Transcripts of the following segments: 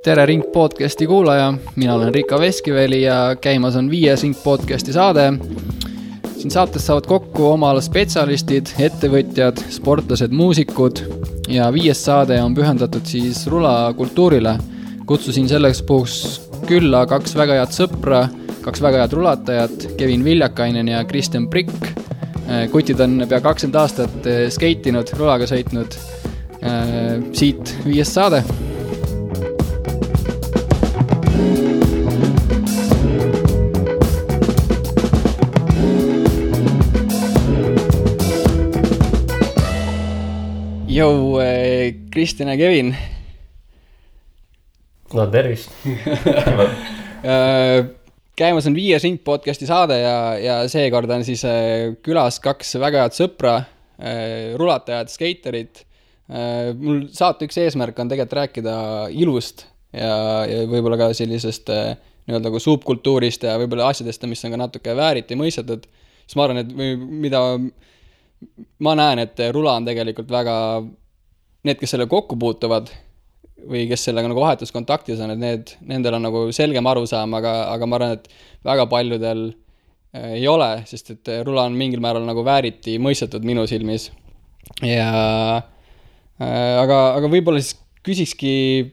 Tere Ring podcasti kuulaja, mina olen Riika Veskiveli ja käimas on 5. Ring podcasti saade. Siin saates saavad kokku oma ala spetsialistid, ettevõtjad, sportlased, muusikud ja 5. saade on pühendatud siis rulakultuurile. Kutsusin selleks puhuks külla 2 väga head sõpra, 2 väga head rulatajat, Kevin Viljakainen ja Kristjan Prikk. Kutid on pea 20 aastat skeitinud, rulaga sõitnud. Siit 5. saade. Jou, Kristjan ja Kevin. No tervist. Käimas on 5. Ring podcasti saade ja seekord on siis külas 2 väga head sõpra, rulatajad, skeiterid. Mul saate üks eesmärk on tegelikult rääkida ilust ja võib-olla ka sellisest nii-öelda subkultuurist ja võib-olla asjadest, mis on ka natuke vääriti mõistetud. Siis ma arvan, et mida ma näen, et rula on tegelikult väga, need, kes selle kokku puutuvad või kes sellega nagu vahetuskontaktis on, et nendel on nagu selgem arusaam, aga ma arvan, et väga paljudel ei ole, sest et rula on mingil määral nagu vääriti mõistetud minu silmis. Aga võib-olla siis küsikski,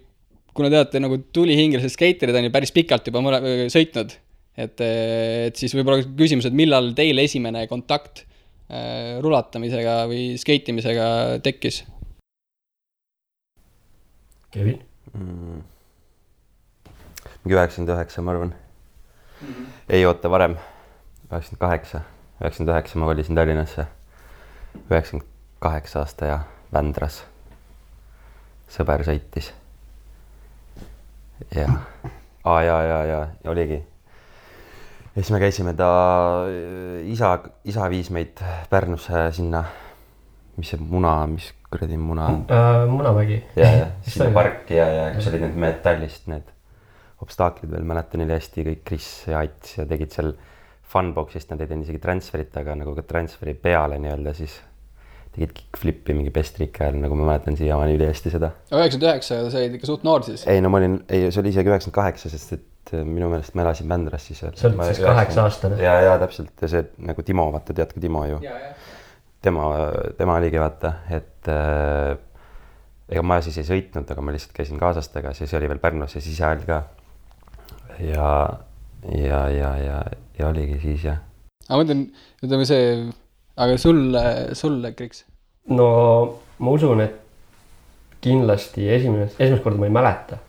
kuna teate nagu tulihingelised skeiterid on ju päris pikalt juba sõitnud, et siis võib-olla küsimus, et millal teil esimene kontakt rulatamisega või skeitimisega tekkis? Kevin? Mingi 99, ma arvan. Ei oota varem. 99 ma kolisin Tallinnasse. 98 aasta ja Vändras. Sõber sõitis. Ja oligi. Ja siis me käisime isa viis meid Pärnusse sinna, mis kuradi muna? Munamägi. Ja sinna parki ja kus olid need metallist, need obstaaklid veel, mäletan neile hästi, kõik Kris ja Ats ja tegid seal funboxist, nad ei teinud isegi transferit, aga nagu ka transferi peale nii-öelda siis tegid kickflipi mingi bestrike ajal, nagu ma mäletan siiamaani üli hästi seda. 99, sa olid ikka suht noor siis? Ei, no ma olin, see oli isegi 98, sest et minu meelest ma elasin Vändras siis. See olid siis 8 aastane? Ja täpselt, ja see nagu Timo, vaata, tead ka Timo ju. Tema oligi, vaata, et ega ma siis ei sõitnud, aga ma lihtsalt käisin kaasastega, siis oli veel Pärnus ja siis ajal ka. Ja oligi siis, jah. Aga mõtlen, ütleme see, aga sulle, Kriks? No ma usun, et kindlasti esimest korda ma ei mäleta.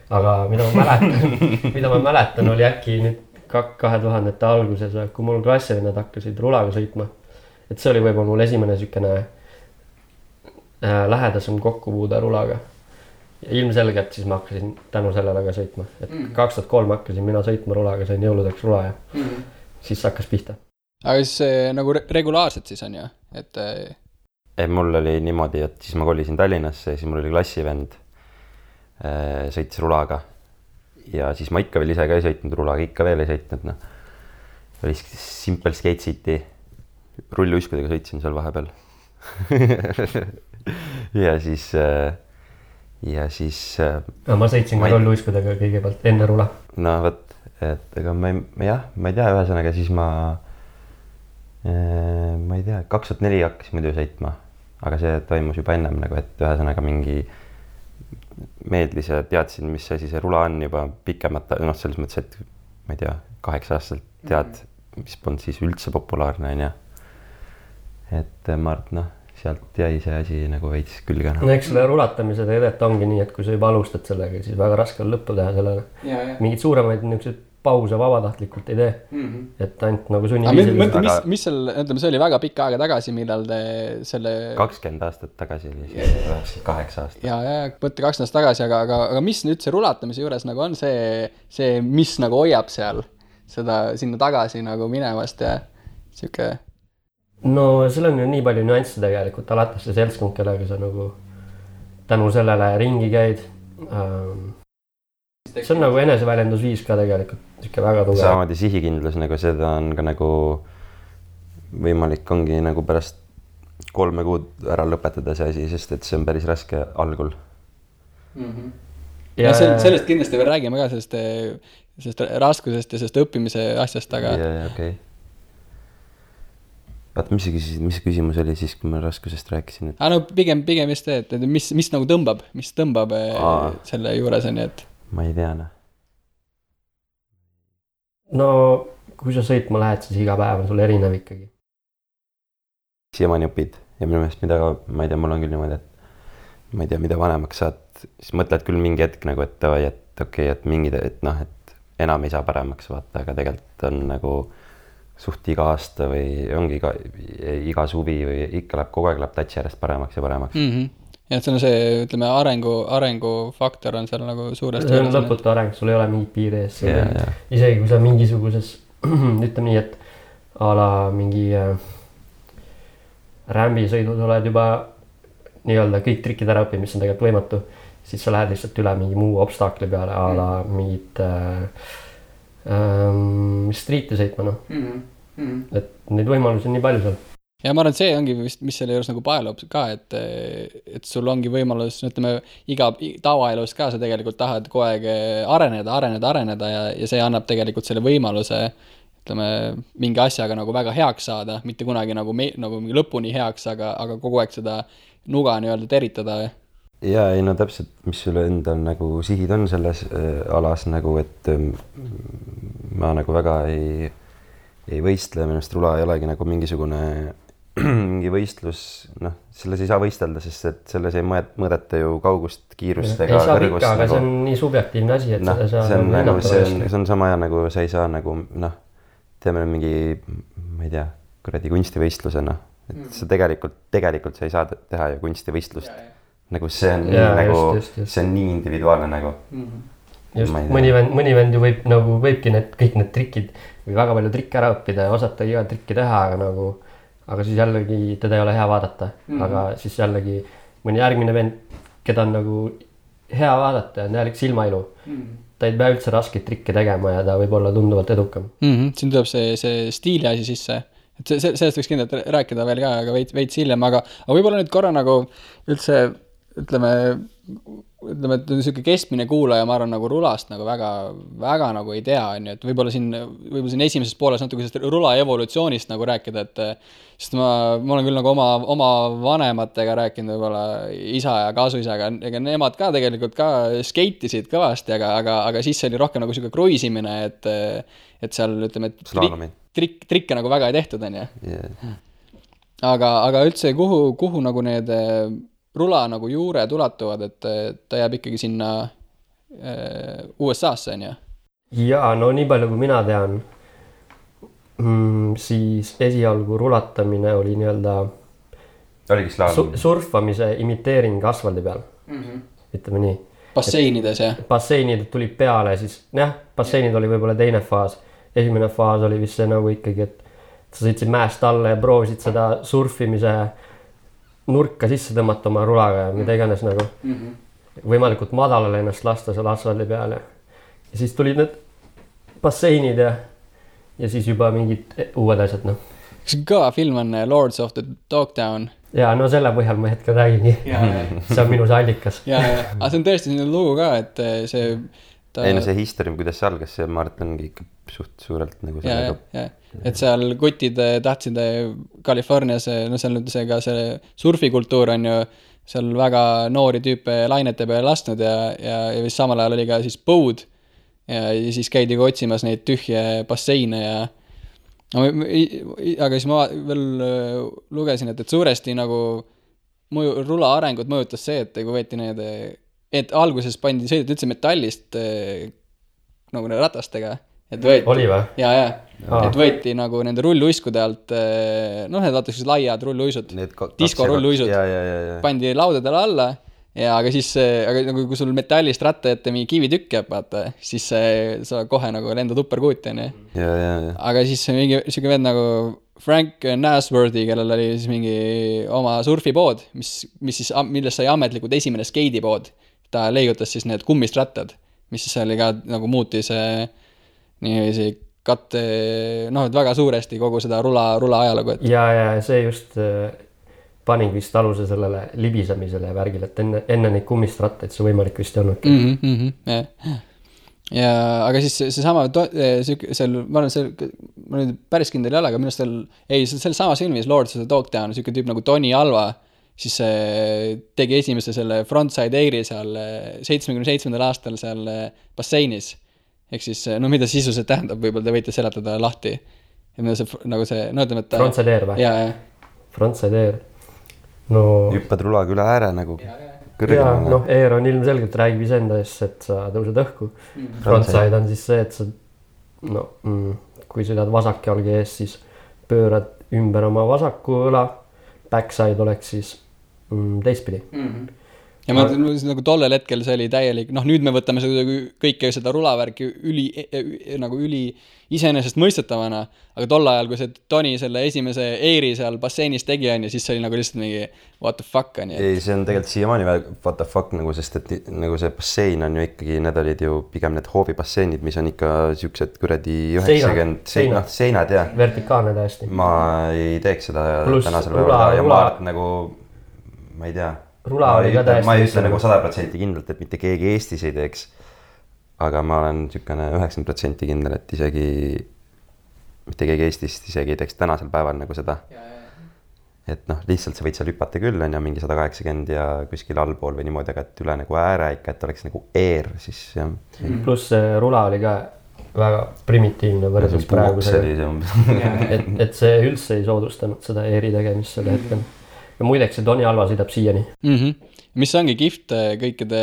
Aga mida ma mäletan oli äkki nüüd 2000-te alguses, kui mul klassivennad hakkasid rulaga sõitma. Et see oli võib-olla mul esimene sükene lähedasem kokkupuude rulaga. Ja ilmselgelt siis ma hakkasin tänu sellele ka sõitma. Et 2003 hakkasin mina sõitma rulaga, sain jõuludeks rula ja siis hakkas pihta. Aga siis nagu regulaarselt siis on ju? Mul oli niimoodi, et siis ma kolisin Tallinnasse ja siis mul oli klassivend sõitis rulaga. Ja siis ma ikka veel ise ka ei sõitnud rulaga, ikka veel ei sõitnud. No. Oli Simple Skate City. Rulluiskudega sõitsin seal vahepeal. ja siis... ma sõitsin ka rulluiskudega kõigepealt enne rula. No võt, et ega ma ei tea, ühesõnaga siis ma ei tea, 2004 hakkasin muidu sõitma, aga see toimus juba ennem nagu, et ühesõnaga mingi meedlis ja teadsin, mis asi see rula on juba pikemat, selles mõttes, et ma ei tea, 8 aastalt tead, mis polnud siis üldse populaarne on ja et ma arvan, sealt jäi see asi nagu veits külge. No eks selle rulatamise tegelikult ongi nii, et kui sa juba alustad sellega, siis väga raske on lõppu teha sellele. Mingid suuremaid niisugused pause vabatahtlikult ei tee. Et ainult nagu sunniviisil. Mis seal, ütleme, see oli väga pikka aega tagasi, millal te selle... 20 aastat tagasi oli, 8 aastat. Ja, võtte 20 aastat tagasi, aga mis nüüd see rulatamise juures nagu on see, mis nagu hoiab seal seda sinna tagasi nagu minevast ja siuke... No seal on ju nii palju nüansse tegelikult, alates see seltskond, kellega sa nagu tänu sellele ringi käid. See on nagu eneseväljendusviis ka tegelikult, siuke väga tugev. Samamoodi sihikindlus, nagu seda on ka nagu võimalik ongi nagu pärast 3 kuud ära lõpetada see asi, sest et see on päris raske algul. ja sellest kindlasti veel räägime ka, sellest raskusest ja sellest õppimise asjast, aga... Ja, okei. Vaata, mis küsimus oli siis, kui ma raskusest rääkisin? Et... no pigem just see, et mis nagu tõmbab selle juures on, et... Ma ei tea, noh. No, kui sa sõitma lähed, siis iga päev on sul erinev ikkagi. Siiamaani õpid ja minu meelest ma ei tea, mul on küll niimoodi, et ma ei tea, mida vanemaks saad, siis mõtled küll mingi hetk nagu, et okei, et mingid, et enam ei saa paremaks vaata, aga tegelikult on nagu suht iga aasta või ongi iga suvi või ikka kogu aeg läheb tatsi järjest paremaks ja paremaks. Ja et see on see, ütleme, arengufaktor on seal nagu suuresti. See on lõputu areng, sul ei ole mingit piiri ees. Isegi kui sa mingisuguses, ütleme nii, et a la mingi rämbisõidud oled juba nii-öelda kõik trikid ära õppid, mis on tegelikult võimatu, siis sa lähed lihtsalt üle mingi muu obstakli peale, a la mingit street'i sõitma, Et neid võimalusi on nii palju seal. Ja ma arvan, et see ongi vist, mis selle juures nagu paelub ka, et sul ongi võimalus, ütleme, iga tavaelus ka sa tegelikult tahad kogu aeg areneda ja see annab tegelikult selle võimaluse, ütleme, mingi asjaga nagu väga heaks saada, mitte kunagi nagu mingi lõpuni heaks, aga kogu aeg seda nuga nii-öelda teritada. Ja ei, no täpselt, mis sulle endal nagu sihid on selles alas nagu, et ma nagu väga ei võistle, minust rula ei olegi nagu mingisugune mingi võistlus, selles ei saa võistelda, sest et selles ei mõõdeta ju kaugust, kiirust ega kõrgust. Ikka, aga see on nii subjektiivne asi, et see on sama ja nagu sa ei saa nagu, teeme mingi, ma ei tea, kuradi kunstivõistlusena, et sa tegelikult sa ei saa teha ju kunstivõistlust. Nagu see on see on nii individuaalne nagu. Just, mõni vend ju võibki kõik need trikid või väga palju trikke ära õppida ja osata iga trikki teha, aga siis jällegi teda ei ole hea vaadata. Aga siis jällegi mõni järgmine vend, keda on nagu hea vaadata ja on jällegi silmailu. Ta ei pea üldse raskeid trikke tegema ja ta võib olla tunduvalt edukam. Siin tuleb see stiili asi sisse. Et sellest võiks kindlalt rääkida veel ka, aga veits hiljem, aga võib-olla nüüd korra nagu üldse, ütleme, et niisugune keskmine kuulaja, ma arvan, nagu rulast nagu väga nagu ei tea, et võib-olla siin esimeses pooles natuke sellest rula evolutsioonist nagu rääkida, et sest ma olen küll nagu oma vanematega rääkinud, võib-olla isa ja kaasuisaga, ega nemad ka tegelikult ka skeitisid kõvasti, aga siis oli rohkem nagu niisugune kruiisimine, et seal, ütleme, trikke nagu väga ei tehtud, on ju. Aga üldse, kuhu nagu need rula nagu juured ulatuvad, et ta jääb ikkagi sinna USA-sse, on ju? Jaa, no nii palju kui mina tean, siis esialgu rulatamine oli nii-öelda surfamise imiteering asfaldi peal. Ütleme nii. Basseinides, jah? Basseinid tulid peale, siis basseinid oli võib-olla teine faas. Esimene faas oli vist see nagu ikkagi, et sa sõitsid mäest alla ja proovisid seda surfimise nurka sisse tõmmata oma rulaga ja mida iganes nagu võimalikult madalale ennast lasta seal asfaldi peale. Ja siis tulid need basseinid ja siis juba mingid uued asjad, Kas kõva film on Lords of the Dogtown? Ja no selle põhjal ma hetkel räägingi. See on minu see allikas. Aga see on tõesti selline lugu ka, et see... Ei, no see history, kuidas see algas, see Martingi ikka suht suurelt nagu ja. Et seal kutid tahtsid Californias, seal nüüd see surfikultuur on ju seal väga noori tüüpe lainete peale lastnud ja vist samal ajal oli ka siis põud ja siis käidi otsimas neid tühje basseine aga siis ma veel lugesin, et suuresti nagu rula arengut mõjutas see, et kui võeti et alguses sõideti üldse metallist nagu ratastega. Oli või? Ja. Et võeti nagu nende rulluiskude alt, need vaata siis laiad rulluisud, disko rulluisud, pandi laudadele alla ja aga siis, nagu kui sul metallist ratta ette mingi kivitükk jääb, vaata, siis sa kohe nagu lendad upperkuuti, on ju. Aga siis mingi siuke vend nagu Frank Nasworthy, kellel oli siis mingi oma surfipood, millest sai ametlikult esimene skeidipood. Ta leigutas siis need kummist rattad, mis siis oli ka nagu muutis niiviisi katte, et väga suuresti kogu seda rula ajalugu. Ja see just panin vist aluse sellele libisemisele ja värgile, et enne neid kummistrattaid see võimalik vist ei olnudki. Ja aga siis seesama seal, ma nüüd päris kindel ei ole, aga minu arust seal samas filmis Lords of the Dogtown siuke tüüp nagu Tony Alva siis tegi esimese selle frontside airi seal 77. aastal seal basseinis. Ehk siis, no mida sisuliselt tähendab, võib-olla te võite seletada lahti. Ja mida see, nagu see, no ütleme, et frontside air või? Jaa. Frontside air. No... Hüppad rulaga üle ääre nagu kõrgemale. Ja, noh, air on ilmselgelt räägib iseenda eest, et sa tõused õhku. Frontside on siis see, et sa, no, kui sõidad vasak jalge ees, siis pöörad ümber oma vasaku õla. Backside oleks siis teistpidi. Ja ma nagu tollel hetkel see oli täielik, noh nüüd me võtame kõike seda rulavärki üli iseenesest mõistetavana, aga tol ajal, kui see Toni selle esimese eiri seal basseinis tegi, siis see oli nagu lihtsalt mingi what the fuck on. Ei, see on tegelikult siiamaani what the fuck, nagu, sest et nagu see bassein on ju ikkagi, need olid ju pigem need hoovibasseinid, mis on ikka siuksed kuradi 90 seinad ja vertikaalne täiesti. Ma ei teeks seda tänasel päeval ja ma arvan nagu, ma ei tea, ma ei ütle nagu 100% kindlalt, et mitte keegi Eestis ei teeks, aga ma olen sükane 90% kindel, et isegi mitte keegi Eestist isegi ei teeks tänasel päeval nagu seda. Et noh, lihtsalt sa võid seal hüpata küll, on ja mingi 180 ja kuskil allpool või niimoodi, aga et üle nagu ääre ikka, et oleks nagu air, siis jah. Pluss rula oli ka väga primitiivne võrdes praegusega. Et see üldse ei soodustanud seda airi tegemist selle hetkel. Ja muideks see Tony Alva sõidab siiani. Mis ongi kihvt kõikide,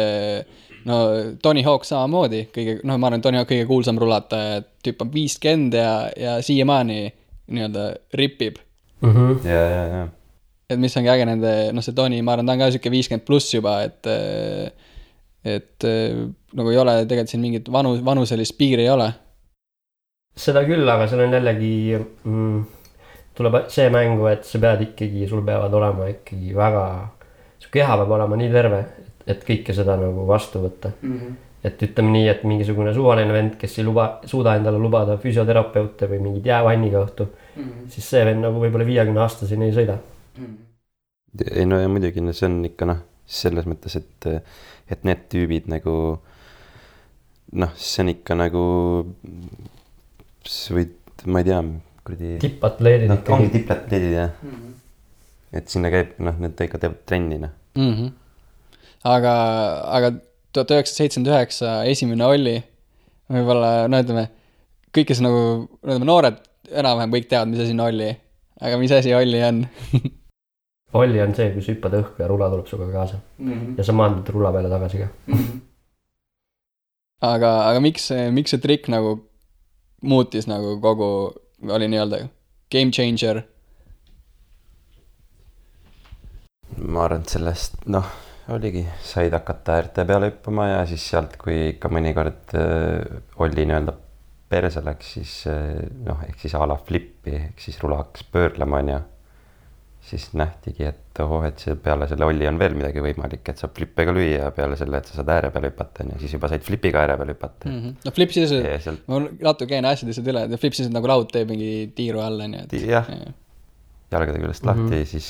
no Tony Hawk samamoodi, no ma arvan, Tony Hawk kõige kuulsam rulataja, et tüüp on 50 ja siiamaani nii-öelda ripib. Ja. Et mis ongi äge nende, no see Tony, ma arvan, ta on ka siuke 50 pluss juba, et nagu ei ole tegelikult siin mingit vanuselist piiri ei ole. Seda küll, aga seal on jällegi... tuleb see mängu, et sa pead ikkagi, sul peavad olema ikkagi väga, su keha peab olema nii terve, et kõike seda nagu vastu võtta. Et ütleme nii, et mingisugune suvaline vend, kes ei suuda endale lubada füsioterapeute või mingid jäävanniga õhtu, siis see vend nagu võib-olla 50-aastaseni ei sõida. Ei no ja muidugi, see on ikka noh, selles mõttes, et need tüübid nagu, noh, see on ikka nagu, ma ei tea, tippatleedid no, ongi tippatleedid jah et sinna käib need ikka teevad trennina aga 1979 esimene Olli võib-olla no ütleme kõik kes nagu noored enam-vähem kõik teavad mis asi on Olli aga mis asi Olli on Olli on see kui sa hüppad õhku ja rula tuleb suga kaasa ja sa maandud rula peale tagasi ka aga miks see trikk nagu muutis nagu kogu oli nii-öelda game changer? Ma arvan, et sellest, noh, oligi, said hakata äärte peale hüppama ja siis sealt, kui ikka mõnikord oli nii-öelda perse läks, siis noh, ehk siis a la flippi, ehk siis rula hakkas pöörlema ja siis nähtigi, et et see peale selle Olli on veel midagi võimalik, et saab flippe ka lüüa ja peale selle, et sa saad ääre peale hüpata ja siis juba said flipiga ääre peale hüpata. No flip siis, ma natuke käin asjadest üle, et flip siis nagu laud teeb mingi tiiru alla. Jah, jalgade küljest lahti, siis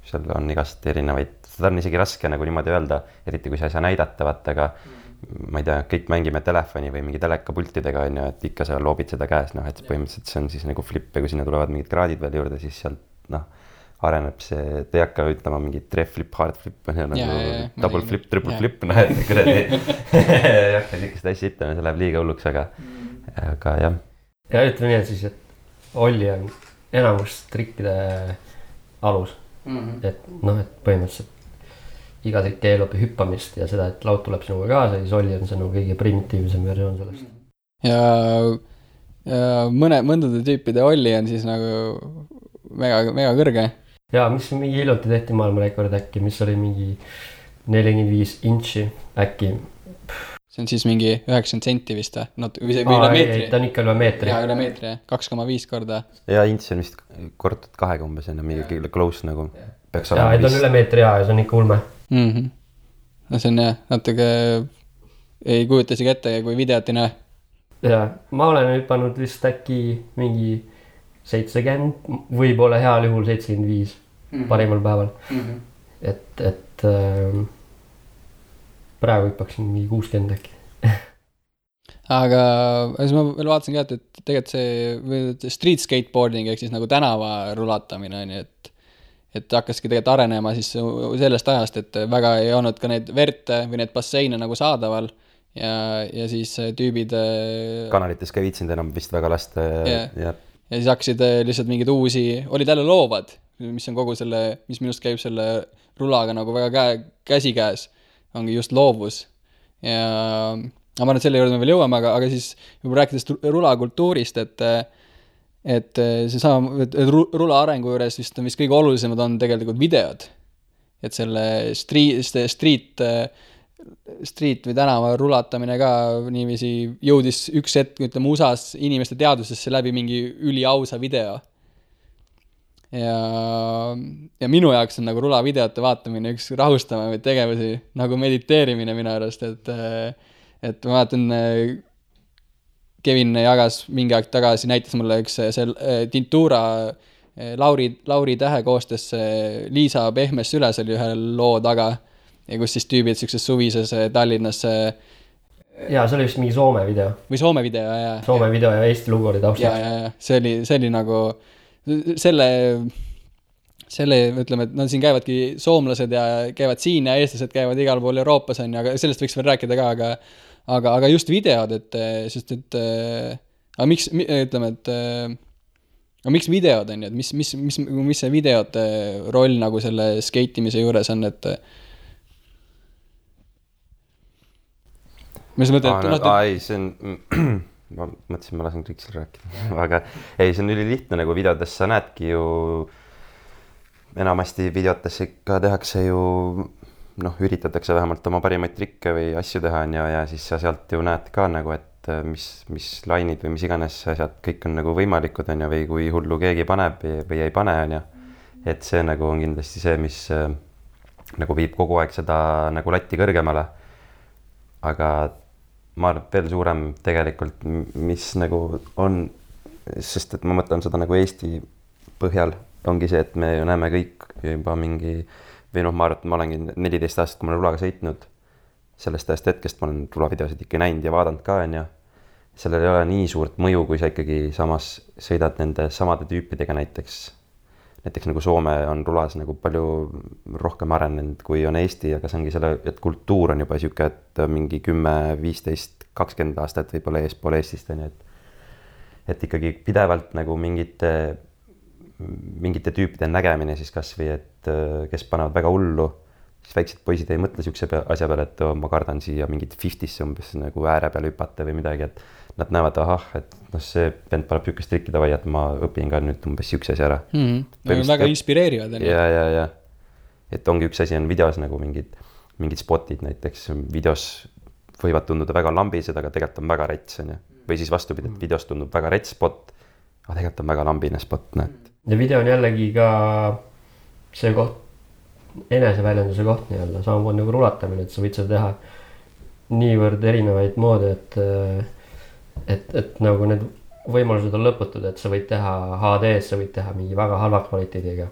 seal on igast erinevaid, seda on isegi raske nagu niimoodi öelda, eriti kui sa ei saa näidata, vaata, aga ma ei tea, kõik mängime telefoni või mingi telekapultidega, on ju, et ikka sa loobid seda käes, noh, et põhimõtteliselt see on siis nagu flip ja kui sinna tulevad mingid kraadid veel juurde, siis sealt, noh, areneb see, te ei hakka ütlema mingi tref flip, hard flip, nagu double flip, triple flip, noh, et kuradi ei hakka sikest asja ütlema, see läheb liiga hulluks, aga jah. Ja ütleme nii, et siis, et Olli on enamus trikkide alus, et noh, et põhimõtteliselt iga trikk eelub hüppamist ja seda, et laud tuleb sinuga kaasa, siis Olli on see nagu kõige primitiivsem versioon sellest. Ja mõndade tüüpide Olli on siis nagu mega kõrge. Ja mis mingi hiljuti tehti maailmarekord äkki, mis oli mingi 45 inči äkki. See on siis mingi 90 senti vist või üle meetri. Ta on ikka üle meetri. Ja üle meetri, 2,5 korda. Ja ints on vist kordatud 2 umbes enne mingi close nagu. Ja ta on üle meetri ja see on ikka ulme. No see on jah, natuke ei kujuta isegi ette, kui videot ei näe. Ja ma olen hüpanud vist äkki mingi 70, võib-olla heal juhul 75. parimal päeval. Et praegu hüppaksin mingi 60 äkki. Aga siis ma veel vaatasin ka, et tegelikult see street skateboarding ehk siis nagu tänava rulatamine on ju, et hakkaski tegelikult arenema siis sellest ajast, et väga ei olnud ka neid verte või need basseine nagu saadaval ja siis tüübid kanalites ka ei viitsinud enam vist väga lasta ja siis hakkasid lihtsalt mingid uusi, olid jälle loovad, mis on kogu selle, mis minust käib selle rulaga nagu väga käsikäes, ongi just loovus ja ma arvan, et selle juurde me veel jõuame, aga siis juba rääkides rulakultuurist, et see sama, et rula arengu juures vist kõige olulisemad on tegelikult videod. Et selle street või tänava rulatamine ka niiviisi jõudis üks hetk, ütleme, USAs inimeste teadvusesse läbi mingi üliausa video. Ja minu jaoks on nagu rulavideote vaatamine üks rahustavamaid tegevusi, nagu mediteerimine minu arust, et ma vaatan, Kevin jagas mingi aeg tagasi, näitas mulle üks Tintura Lauri Tähe koostes Liisa Pehmes Süles oli ühe loo taga ja kus siis tüübid sellises suvises Tallinnas jaa, see oli vist mingi Soome video. Või Soome video, jaa. Soome video ja Eesti lugu oli taustaks. Jaa, see oli nagu selle, ütleme, et no siin käivadki soomlased ja käivad siin ja eestlased käivad igal pool Euroopas on ja aga sellest võiks veel rääkida ka, aga just videod, sest aga miks, ütleme, aga miks videod on ju, et mis see videote roll nagu selle skeitimise juures on, et mis mõtled, ei, see on ma mõtlesin, ma lasen Kriksil rääkida aga ei, see on ülilihtne nagu videotes sa näedki ju enamasti videotes ikka tehakse ju üritatakse vähemalt oma parimaid trikke või asju teha ja siis sa sealt ju näed ka nagu, et mis lainid või mis iganes asjad kõik on nagu võimalikud on ju, või kui hullu keegi paneb või ei pane on ju, et see nagu on kindlasti see, mis nagu viib kogu aeg seda nagu latti kõrgemale, aga ma arvan, veel suurem tegelikult, mis nagu on, sest et ma mõtlen seda nagu Eesti põhjal, ongi see, et me ju näeme kõik juba mingi või ma arvan, et ma olengi 14 aastat, kui ma olen rulaga sõitnud, sellest ajast hetkest ma olen rulavideosid ikka näinud ja vaadanud ka, on ju. Sellel ei ole nii suurt mõju, kui sa ikkagi samas sõidad nende samade tüüpidega näiteks nagu Soome on rulas nagu palju rohkem arenenud, kui on Eesti, aga see ongi selle, et kultuur on juba siuke, et mingi 10, 15, 20 aastat võib-olla eespool Eestist, on ju, et ikkagi pidevalt nagu mingite tüüpide nägemine siis kas või, et kes panevad väga hullu, siis väiksed poisid ei mõtle siukse asja peale, et ma kardan siia mingit 50'sse umbes nagu ääre peale hüpata või midagi, et nad näevad, et see vend paneb siukest trikki davai, et ma õpin ka nüüd umbes siukse asja ära. Väga inspireerivad. Ja. Et ongi üks asi on videos nagu mingid spotid näiteks, videos võivad tunduda väga lambised, aga tegelikult on väga rets, on ju. Või siis vastupidi, et videos tundub väga rets spot, aga tegelikult on väga lambine spot, näed. Ja video on jällegi ka see koht, eneseväljenduse koht nii-öelda, samamoodi nagu rulatamine, et sa võid seda teha niivõrd erinevaid moodi, et nagu need võimalused on lõputud, et sa võid teha HD-s, sa võid teha mingi väga halva kvaliteediga,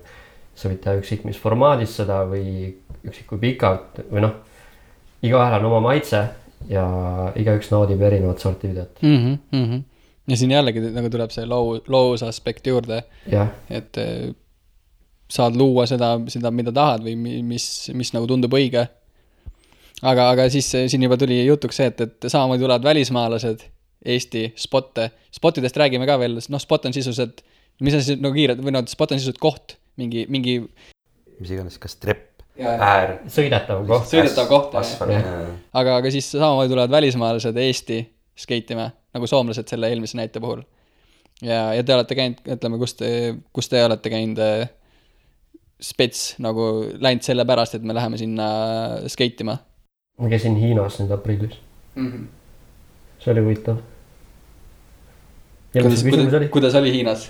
sa võid teha üksik mis formaadis seda või üksik kui pikalt või igaühel on oma maitse ja igaüks naudib erinevat sorti videot. Ja siin jällegi nagu tuleb see loos aspekt juurde, et saad luua seda, mida tahad või mis nagu tundub õige. Aga siis siin juba tuli jutuks see, et samamoodi tulevad välismaalased Eesti spotidest räägime ka veel, spot on sisuliselt, mis on siis nagu kiired, või spot on sisuliselt koht, mingi mis iganes, kas trepp, äär, sõidetav koht, aga siis samamoodi tulevad välismaalased Eesti skeitima, nagu soomlased selle eelmise näite puhul ja te olete käinud, ütleme, kus te olete käinud spets nagu läinud selle pärast, et me läheme sinna skeitima? Ma käisin Hiinas nüüd aprillis. See oli huvitav. ja mis see küsimus oli? Kuidas oli Hiinas?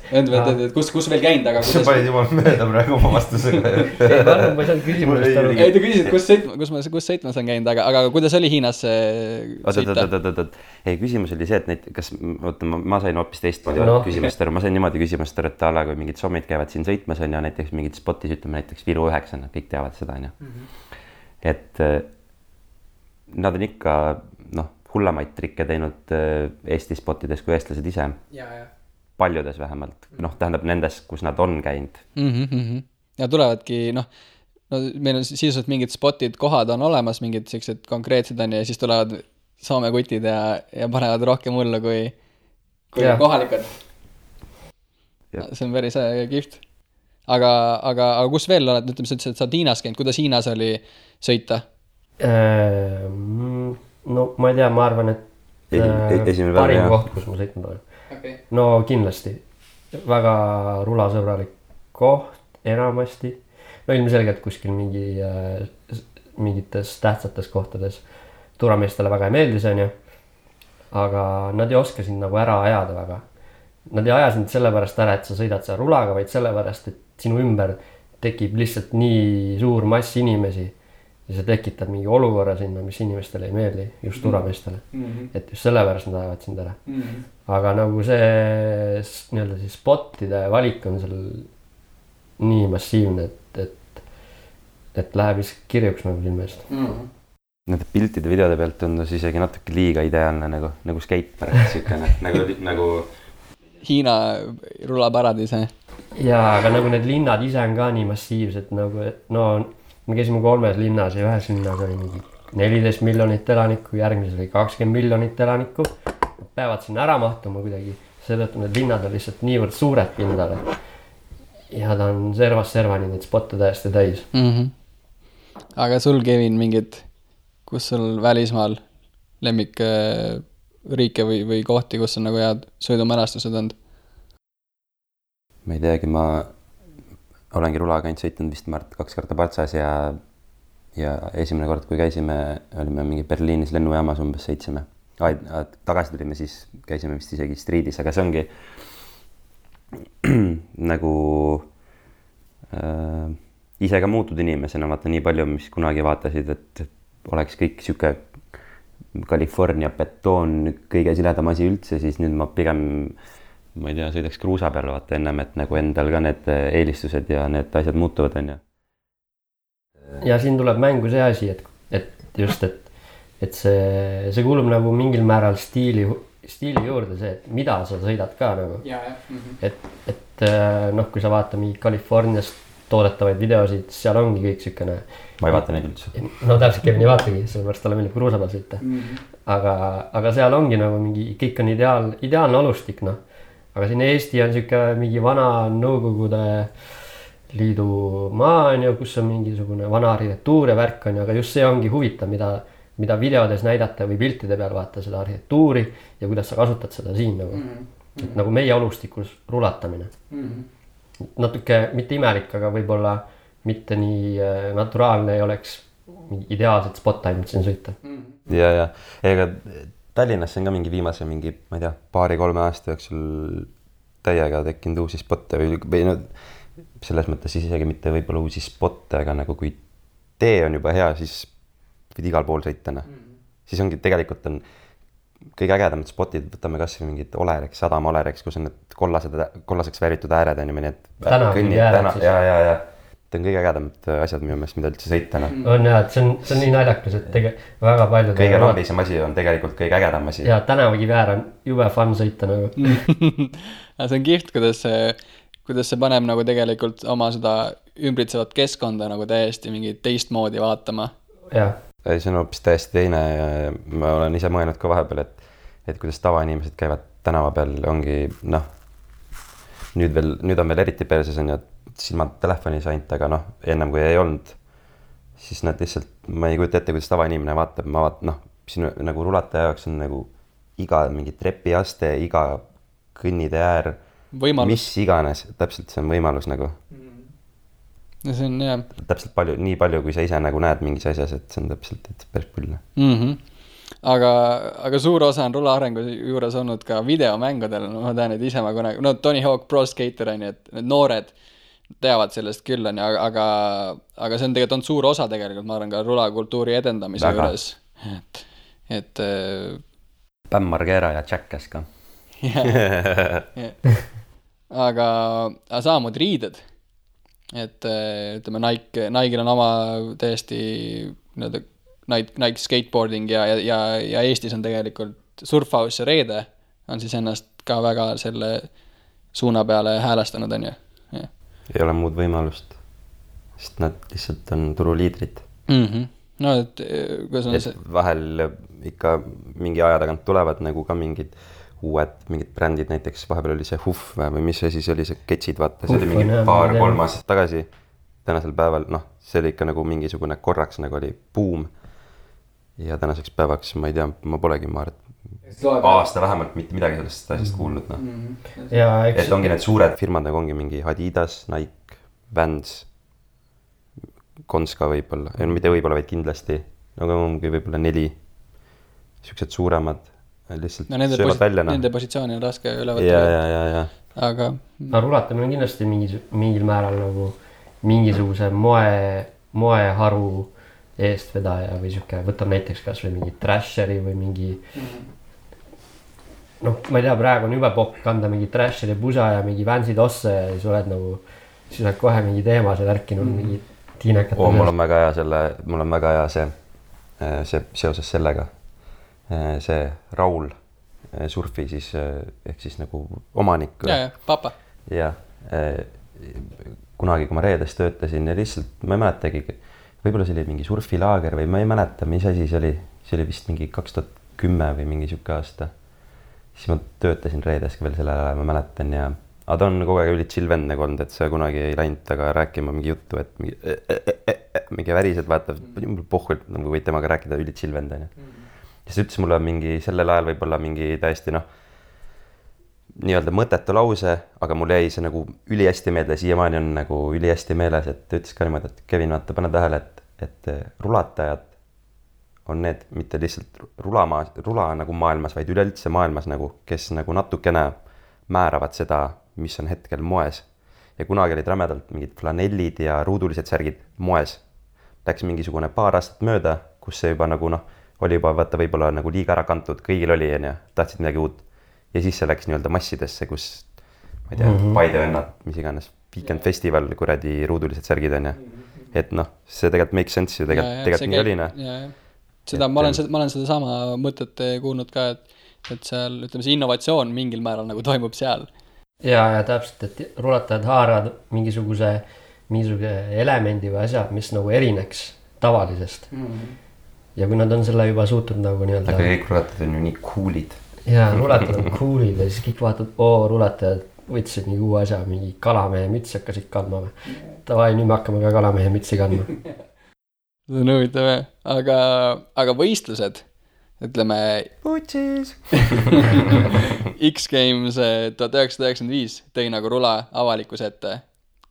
Kus veel käinud, aga sa panid juba mööda praegu oma vastusega. Ei, ma ei saanud küsimusest aru. Ei, te küsisid, kus sõitmas on käinud, aga kuidas oli Hiinas sõita? Ei, küsimus oli see, et ma sain hoopis teistmoodi küsimust aru. Ma sain niimoodi küsimust aru, et kui mingid sommid käivad siin sõitmas on ja näiteks mingid spotis, ütleme näiteks Viru 9, kõik teavad seda, on ju. Et nad on ikka, hullemaid trikke teinud Eesti spotides kui eestlased ise. Paljudes vähemalt. Tähendab nendes, kus nad on käinud. Ja tulevadki, meil on sisuliselt mingid spotid, kohad on olemas, mingid sellised konkreetsed on ja siis tulevad Soome kutid ja panevad rohkem hullu kui kohalikud. See on päris kihvt. Aga kus veel oled, ütleme, sa ütlesid, et sa oled Hiinas käinud, kuidas Hiinas oli sõita? No ma ei tea, ma arvan, et parim koht, kus ma sõitnud olen. Okay. No kindlasti. Väga rulasõbralik koht enamasti. No ilmselgelt kuskil mingites tähtsates kohtades tuurameestele väga ei meeldi see on ju. Aga nad ei oska sind nagu ära ajada väga. Nad ei aja sind sellepärast ära, et sa sõidad seal rulaga, vaid sellepärast, et sinu ümber tekib lihtsalt nii suur mass inimesi ja sa tekitad mingi olukorra sinna, mis inimestele ei meeldi, just tuurameestele. Et just sellepärast nad ajavad sind ära. Aga nagu see nii-öelda siis spotide valik on seal nii massiivne, et läheb vist kirjuks nagu silmest. Nende piltide videode pealt tundus isegi natuke liiga ideaalne nagu skatepark nagu Hiina rulaparadiis. Jaa, aga nagu need linnad ise on ka nii massiivsed nagu, et me käisime 3 linnas ja ühes linnas oli mingi 14 miljonit elanikku, järgmises oli 20 miljonit elanikku. Peavad sinna ära mahtuma kuidagi, seetõttu need linnad on lihtsalt niivõrd suured pindale. Ja ta on servast servani neid spotte täiesti täis. Aga sul, Kevin, mingid, kus sul välismaal lemmik riike või kohti, kus on nagu head sõidumälestused olnud? Ma ei teagi, ma olengi rulaga ainult sõitnud vist 2 korda Patsas ja esimene kord, kui käisime, olime mingi Berliinis lennujaamas umbes sõitsime. Tagasi tulime, siis käisime vist isegi Streetis, aga see ongi nagu ise ka muutud inimesena, vaata nii palju, mis kunagi vaatasid, et oleks kõik siuke California betoon kõige siledam asi üldse, siis nüüd ma pigem, ma ei tea, sõidaks kruusa peal vaata ennem, et nagu endal ka need eelistused ja need asjad muutuvad, on ju. Ja siin tuleb mängu see asi, et see kuulub nagu mingil määral stiili juurde see, et mida sa sõidad ka nagu. Et kui sa vaata mingi Californiast toodetavaid videosid, seal ongi kõik sükene. Ma ei vaata neid üldse. No täpselt Kevin ei vaatagi, sellepärast talle meeldib kruusa peal sõita. Aga seal ongi nagu mingi, kõik on ideaalne alustik, Aga siin Eesti on siuke mingi vana Nõukogude Liidu maa on ju, kus on mingisugune vana arhitektuur ja värk on ju, aga just see ongi huvitav, mida videodes näidata või piltide peal vaata seda arhitektuuri ja kuidas sa kasutad seda siin nagu. Et nagu meie alustikus rulatamine. Natuke mitte imelik, aga võib-olla mitte nii naturaalne ei oleks ideaalset spot ainult siin sõita. Ja ega Tallinnasse on ka mingi viimase ma ei tea, 2-3 aasta jooksul täiega tekkinud uusi spotte või selles mõttes isegi mitte võib-olla uusi spotte, aga nagu kui tee on juba hea, siis võid igal pool sõita. Siis ongi tegelikult on kõige ägedamad spotid, võtame kas või mingid Olerex, Sadama Olerex, kus on need kollaseks vääritud ääred on ju, ja ta on kõige ägedamad asjad minu meelest, mida üldse sõita. On jah, et see on nii naljakas, et väga palju kõige rollisem asi on tegelikult kõige ägedam asi. Ja tänavakiväär on jube fun sõita nagu. See on kihvt, kuidas see paneb nagu tegelikult oma seda ümbritsevat keskkonda nagu täiesti mingi teistmoodi vaatama. See on hoopis täiesti teine ja ma olen ise mõelnud ka vahepeal, et kuidas tavainimesed käivad tänava peal, ongi nüüd on veel eriti perses on ju, silmad telefonis ainult, aga ennem kui ei olnud, siis nad lihtsalt, ma ei kujuta ette, kuidas tavainimene vaatab, sinu nagu rulataja jaoks on nagu iga mingi trepiaste, iga kõnnide äär, mis iganes, täpselt see on võimalus nagu. Ja see on jah. Täpselt nii palju, kui sa ise nagu näed mingis asjas, et see on täpselt päris pull. aga suur osa on rula arengu juures olnud ka videomängudel, no ma tean, et ise ma kunagi, no Tony Hawk Pro Skater on ju, et need noored teavad sellest küll on ju, aga see on tegelikult olnud suur osa tegelikult, ma arvan, ka rulakultuuri edendamise Väga. juures. Et Bam Margera ja Jackass ka. aga samamoodi riided. Et ütleme, Nike'il on oma täiesti Nike skateboarding ja Eestis on tegelikult Surfhouse ja Reede on siis ennast ka väga selle suuna peale häälestanud, on ju. Ei ole muud võimalust, sest nad lihtsalt on turuliidrid. No, et kuidas on see? Vahel ikka mingi aja tagant tulevad nagu ka mingid brändid, näiteks vahepeal oli see Huff või mis see siis oli, see Ketsid, vaata, see oli mingi 2-3 aastat tagasi. Tänasel päeval, noh, see oli ikka nagu mingisugune korraks nagu oli buum. Ja tänaseks päevaks, ma ei tea, ma polegi aasta vähemalt mitte midagi sellest asjast kuulnud, noh. Et ongi need suured firmad, nagu ongi mingi Adidas, Nike, Vans, Konska võib-olla, mitte võib-olla, vaid kindlasti, nagu ongi võib-olla 4 siuksed suuremad, lihtsalt söövad välja. Nende positsiooni on raske üle võtta. Ja. Aga rulatamine on kindlasti mingil määral nagu mingisuguse moeharu eestvedaja või siuke, võtab näiteks kas või mingi Thrasheri või mingi noh, ma ei tea, praegu on jube popp kanda mingi Thrasheri pusa ja mingi Vansi tosse ja siis oled nagu, siis oled kohe mingi teema seal ärkinud mingi tiinekate. Mul on väga hea see seoses sellega. See Raul Surfi siis, ehk siis nagu omanik. Ja, papa. Ja, kunagi, kui ma Reedes töötasin ja lihtsalt, ma ei mäletagi, võib-olla see oli mingi surfilaager või ma ei mäleta, mis asi see oli vist mingi 2010 või mingi siuke aasta. Siis ma töötasin Reedes veel selle ajal, ma mäletan ja aga ta on kogu aeg üli chill vend nagu olnud, et see kunagi ei läinud taga rääkima mingi juttu, et mingi värised vaata, pohvult, nagu võid temaga rääkida, üli chill vend on ju. Ja siis ütles mulle mingi sellel ajal võib-olla mingi täiesti nii-öelda mõttetu lause, aga mul jäi see nagu üli hästi meelde, siiamaani on nagu üli hästi meeles, et ta ütles ka niimoodi, et Kevin, vaata, pane tähele, et rulatajad on need mitte lihtsalt rula nagu maailmas, vaid üleüldse maailmas nagu, kes nagu natukene määravad seda, mis on hetkel moes. Ja kunagi olid rämedalt mingid flanellid ja ruudulised särgid moes. Läks mingisugune paar aastat mööda, kus see juba nagu oli juba vaata võib-olla nagu liiga ära kantud, kõigil oli ja tahtsid midagi uut. Ja siis see läks nii-öelda massidesse, kus ma ei tea, Paidevennad, mis iganes, Weekend Festival, kuradi ruudulised särgid on ja. Et see tegelikult make sense ju tegelikult nii oli. Seda, ma olen seda sama mõtet kuulnud ka, et seal, ütleme, see innovatsioon mingil määral nagu toimub seal. Ja täpselt, et rulatajad haaravad mingisuguse elemendi või asja, mis nagu erineks tavalisest. Ja kui nad on selle juba suutnud nagu nii-öelda... Aga kõik rulatajad on ju nii coolid. Ja rulatajad on coolid ja siis kõik vaatavad, rulatajad võtsid nii uue asja, mingi kalamehe mütsi hakkasid kandma. Tavai, nüüd me hakkame ka kalamehe mütsi kandma. See on huvitav, aga võistlused, ütleme... Putsis! X-Games 1995 tõi nagu rula avalikkuse ette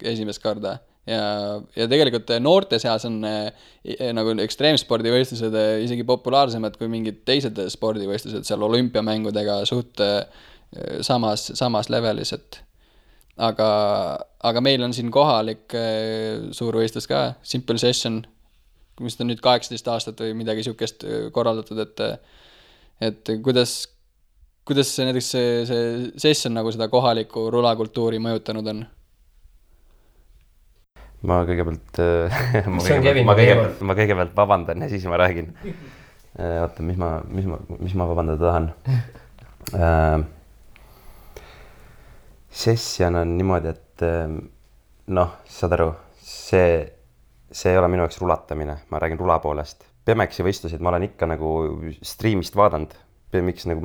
esimest korda. Ja tegelikult noorte seas on nagu ekstreemspordivõistlused isegi populaarsemad kui mingid teised spordivõistlused seal olümpiamängudega suht samas levelis, et aga meil on siin kohalik suur võistlus ka, Simple Session, mis on nüüd 18 aastat või midagi siukest korraldatud, et kuidas näiteks see session nagu seda kohalikku rulakultuuri mõjutanud on? Ma kõigepealt vabandan ja siis ma räägin. Oota, mis ma vabandada tahan? Session on niimoodi, et saad aru, see ei ole minu jaoks rulatamine, ma räägin rula poolest. BMX-i võistlusid ma olen ikka nagu streamist vaadanud. BMX, nagu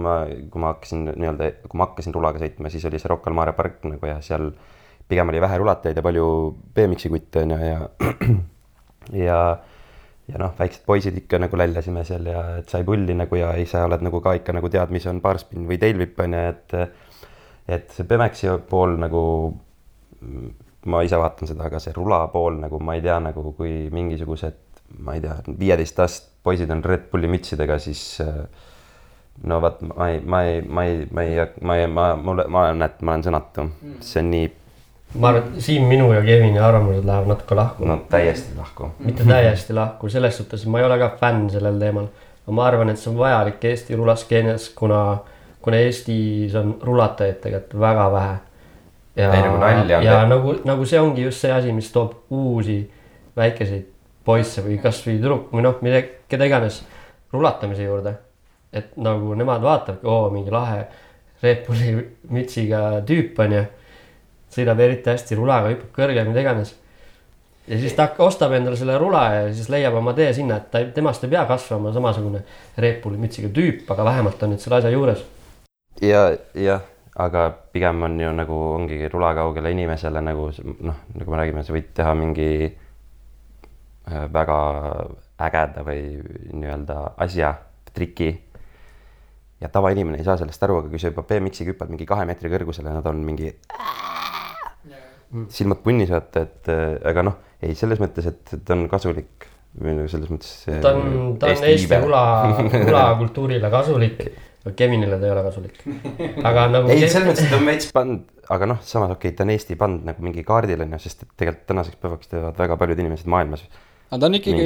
kui ma hakkasin rulaga sõitma, siis oli see Rocca al Mare park nagu ja seal pigem oli vähe rulatajaid ja palju BMX-i kutte ja väiksed poisid ikka nagu läljasime seal ja et sai pulli nagu ja ise oled nagu ka ikka nagu tead, mis on barspin või tailwhip on ja et see BMX-i pool nagu ma ise vaatan seda, aga see rula pool nagu ma ei tea nagu kui mingisugused, ma ei tea, 15 poisid on Red Bulli mütsidega, siis no vaat ma olen sõnatu. See on nii... Ma arvan, siin minu ja Kevini arvamused lähevad natuke lahku. No täiesti lahku. Mitte täiesti lahku, selles suhtes ma ei ole ka fänn sellel teemal. Ma arvan, et see on vajalik Eesti rulaskeenias, kuna Eestis on rulatajaid tegelikult väga vähe. Ja nagu see ongi just see asi, mis toob uusi väikeseid poisse või kas või tüdruk või noh, keda iganes rulatamise juurde. Et nagu nemad vaatavad, mingi lahe Red Bulli mütsiga tüüp on ja sõidab eriti hästi rulaga, hüppab kõrge, mida iganes. Ja siis ta ostab endale selle rula ja siis leiab oma tee sinna, et temast ei pea kasvama samasugune Red Bulli mütsiga tüüp, aga vähemalt on nüüd selle asja juures. Ja, aga pigem on ju nagu ongi rulakaugele inimesele nagu nagu me räägime, sa võid teha mingi väga ägeda või nii-öelda asja, triki. Ja tavainimene ei saa sellest aru, aga kui sa juba BMX-iga hüppad mingi 2 meetri kõrgusele, nad on mingi silmad punnis vaata, et aga ei selles mõttes, et ta on kasulik või selles mõttes ta on Eesti rulakultuurile kasulik, Kevinile ta ei ole kasulik. Aga nagu ei, selles mõttes, et ta on veits band, aga samas ta on Eesti band nagu mingi kaardil on ju, sest et tegelikult tänaseks päevaks teevad väga paljud inimesed maailmas. Aga ta on ikkagi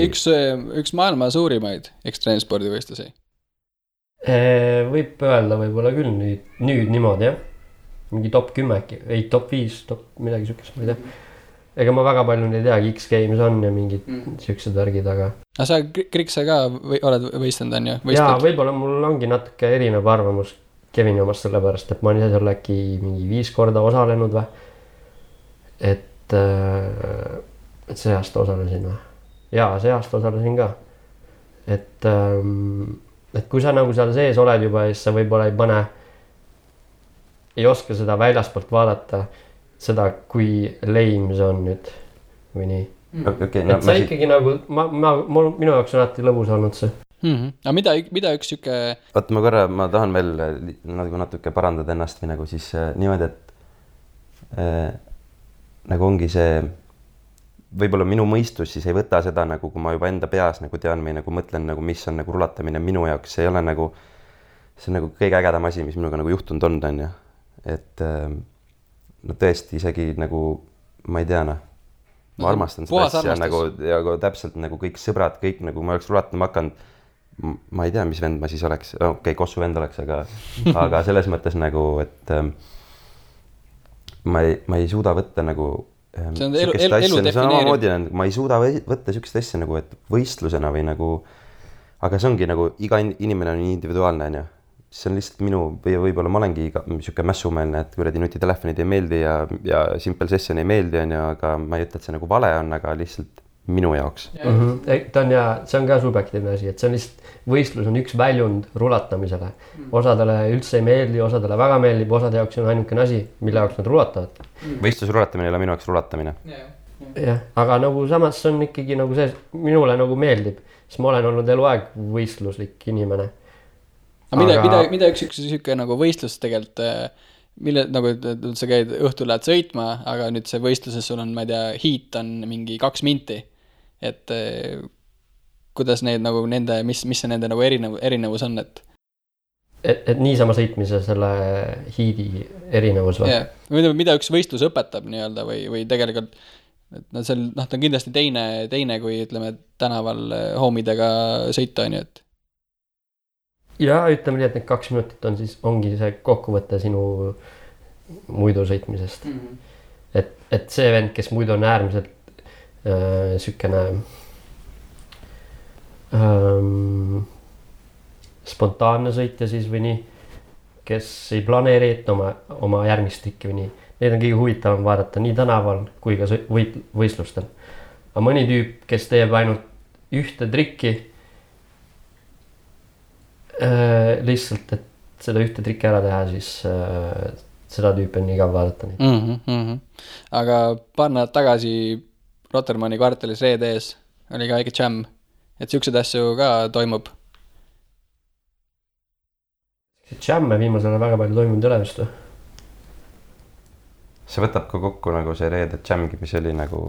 üks maailma suurimaid ekstreemspordivõistlusi. Võib öelda võib-olla küll nüüd niimoodi, jah. Mingi top 10, ei top 5, midagi sükest, ma ei tea. Ega ma väga palju ei teagi, X-Games on ja mingid süksed värgid, aga... Aga sa Krikse ka oled võistanud, on ju? Jaa, võib-olla mul ongi natuke erinev arvamus Kevini omast sellepärast, et ma olen ise seal äkki mingi 5 korda osalenud või. Et see aasta osalesin või? Jaa, see aasta osalesin ka. Et kui sa nagu seal sees oled juba, siis sa võib-olla ei oska seda väljaspoolt vaadata, seda, kui lame see on nüüd või nii. Okay, et see ikkagi nagu, minu jaoks on alati lõbus olnud see. Aga mida üks süke... Oota, ma tahan veel natuke parandada ennast või nagu siis niimoodi, et nagu ongi see, võib-olla minu mõistus siis ei võta seda nagu, kui ma juba enda peas nagu tean või nagu mõtlen nagu, mis on nagu rulatamine minu jaoks, see ei ole nagu, see on nagu kõige ägedam asi, mis minuga nagu juhtunud on ja. Et no tõesti isegi nagu, ma ei tea, ma armastan seda asja nagu, ja täpselt nagu kõik sõbrad, kõik nagu ma oleks rulatama hakanud, ma ei tea, mis vend ma siis oleks, Kossu vend oleks, aga selles mõttes nagu, et ma ei suuda võtta nagu see on elu defineerib. Ma ei suuda võtta sükest asja nagu, et võistlusena või nagu, aga see ongi nagu, iga inimene on individuaalne, on ju. See on lihtsalt minu, võib-olla ma olengi siuke mässumeelne, et kuradi nutitelefonid ei meeldi ja Simple Session ei meeldi, on ju, aga ma ei ütle, et see nagu vale on, aga lihtsalt minu jaoks. See on ka subjektiivne asi, et see on lihtsalt, võistlus on üks väljund rulatamisele. Osadele üldse ei meeldi, osadele väga meeldib, osade jaoks on ainukene asi, mille jaoks nad rulatavad. Võistlusrulatamine ei ole minu jaoks rulatamine. Jah, aga nagu samas on ikkagi nagu see, minule nagu meeldib, sest ma olen olnud eluaeg võistluslik inimene. Mida üks süke nagu võistlus tegelikult, mille nagu sa käid õhtul lähed sõitma, aga nüüd see võistluses sul on, ma ei tea, hiit on mingi 2 minti. Et kuidas neid nagu nende, mis see nende nagu erinevus on, et niisama sõitmise selle hiidi erinevus või? Yeah. Mida üks võistlus õpetab nii-öelda või tegelikult, et ta on kindlasti teine kui ütleme tänaval homidega sõita on ju, et ja ütleme nii, et need 2 minutit ongi see kokkuvõte sinu muidu sõitmisest. Et see vend, kes muidu on äärmiselt sükene spontaanne sõitja siis või nii, kes ei planeeri ette oma järgmist trikki või nii. Neid on kõige huvitavam vaadata nii tänaval kui ka võistlustel. Aga mõni tüüp, kes teeb ainult ühte trikki, lihtsalt, et seda ühte trikki ära teha, siis seda tüüpi on igav vaadata. Aga paar nädalat tagasi Rotermanni kvartalis Reede ees oli ka väike jam, et siuksed asju ka toimub. Jamme viimasel väga palju toimunud üle vist või? See võtab ka kokku nagu see Reede jamgi, mis oli nagu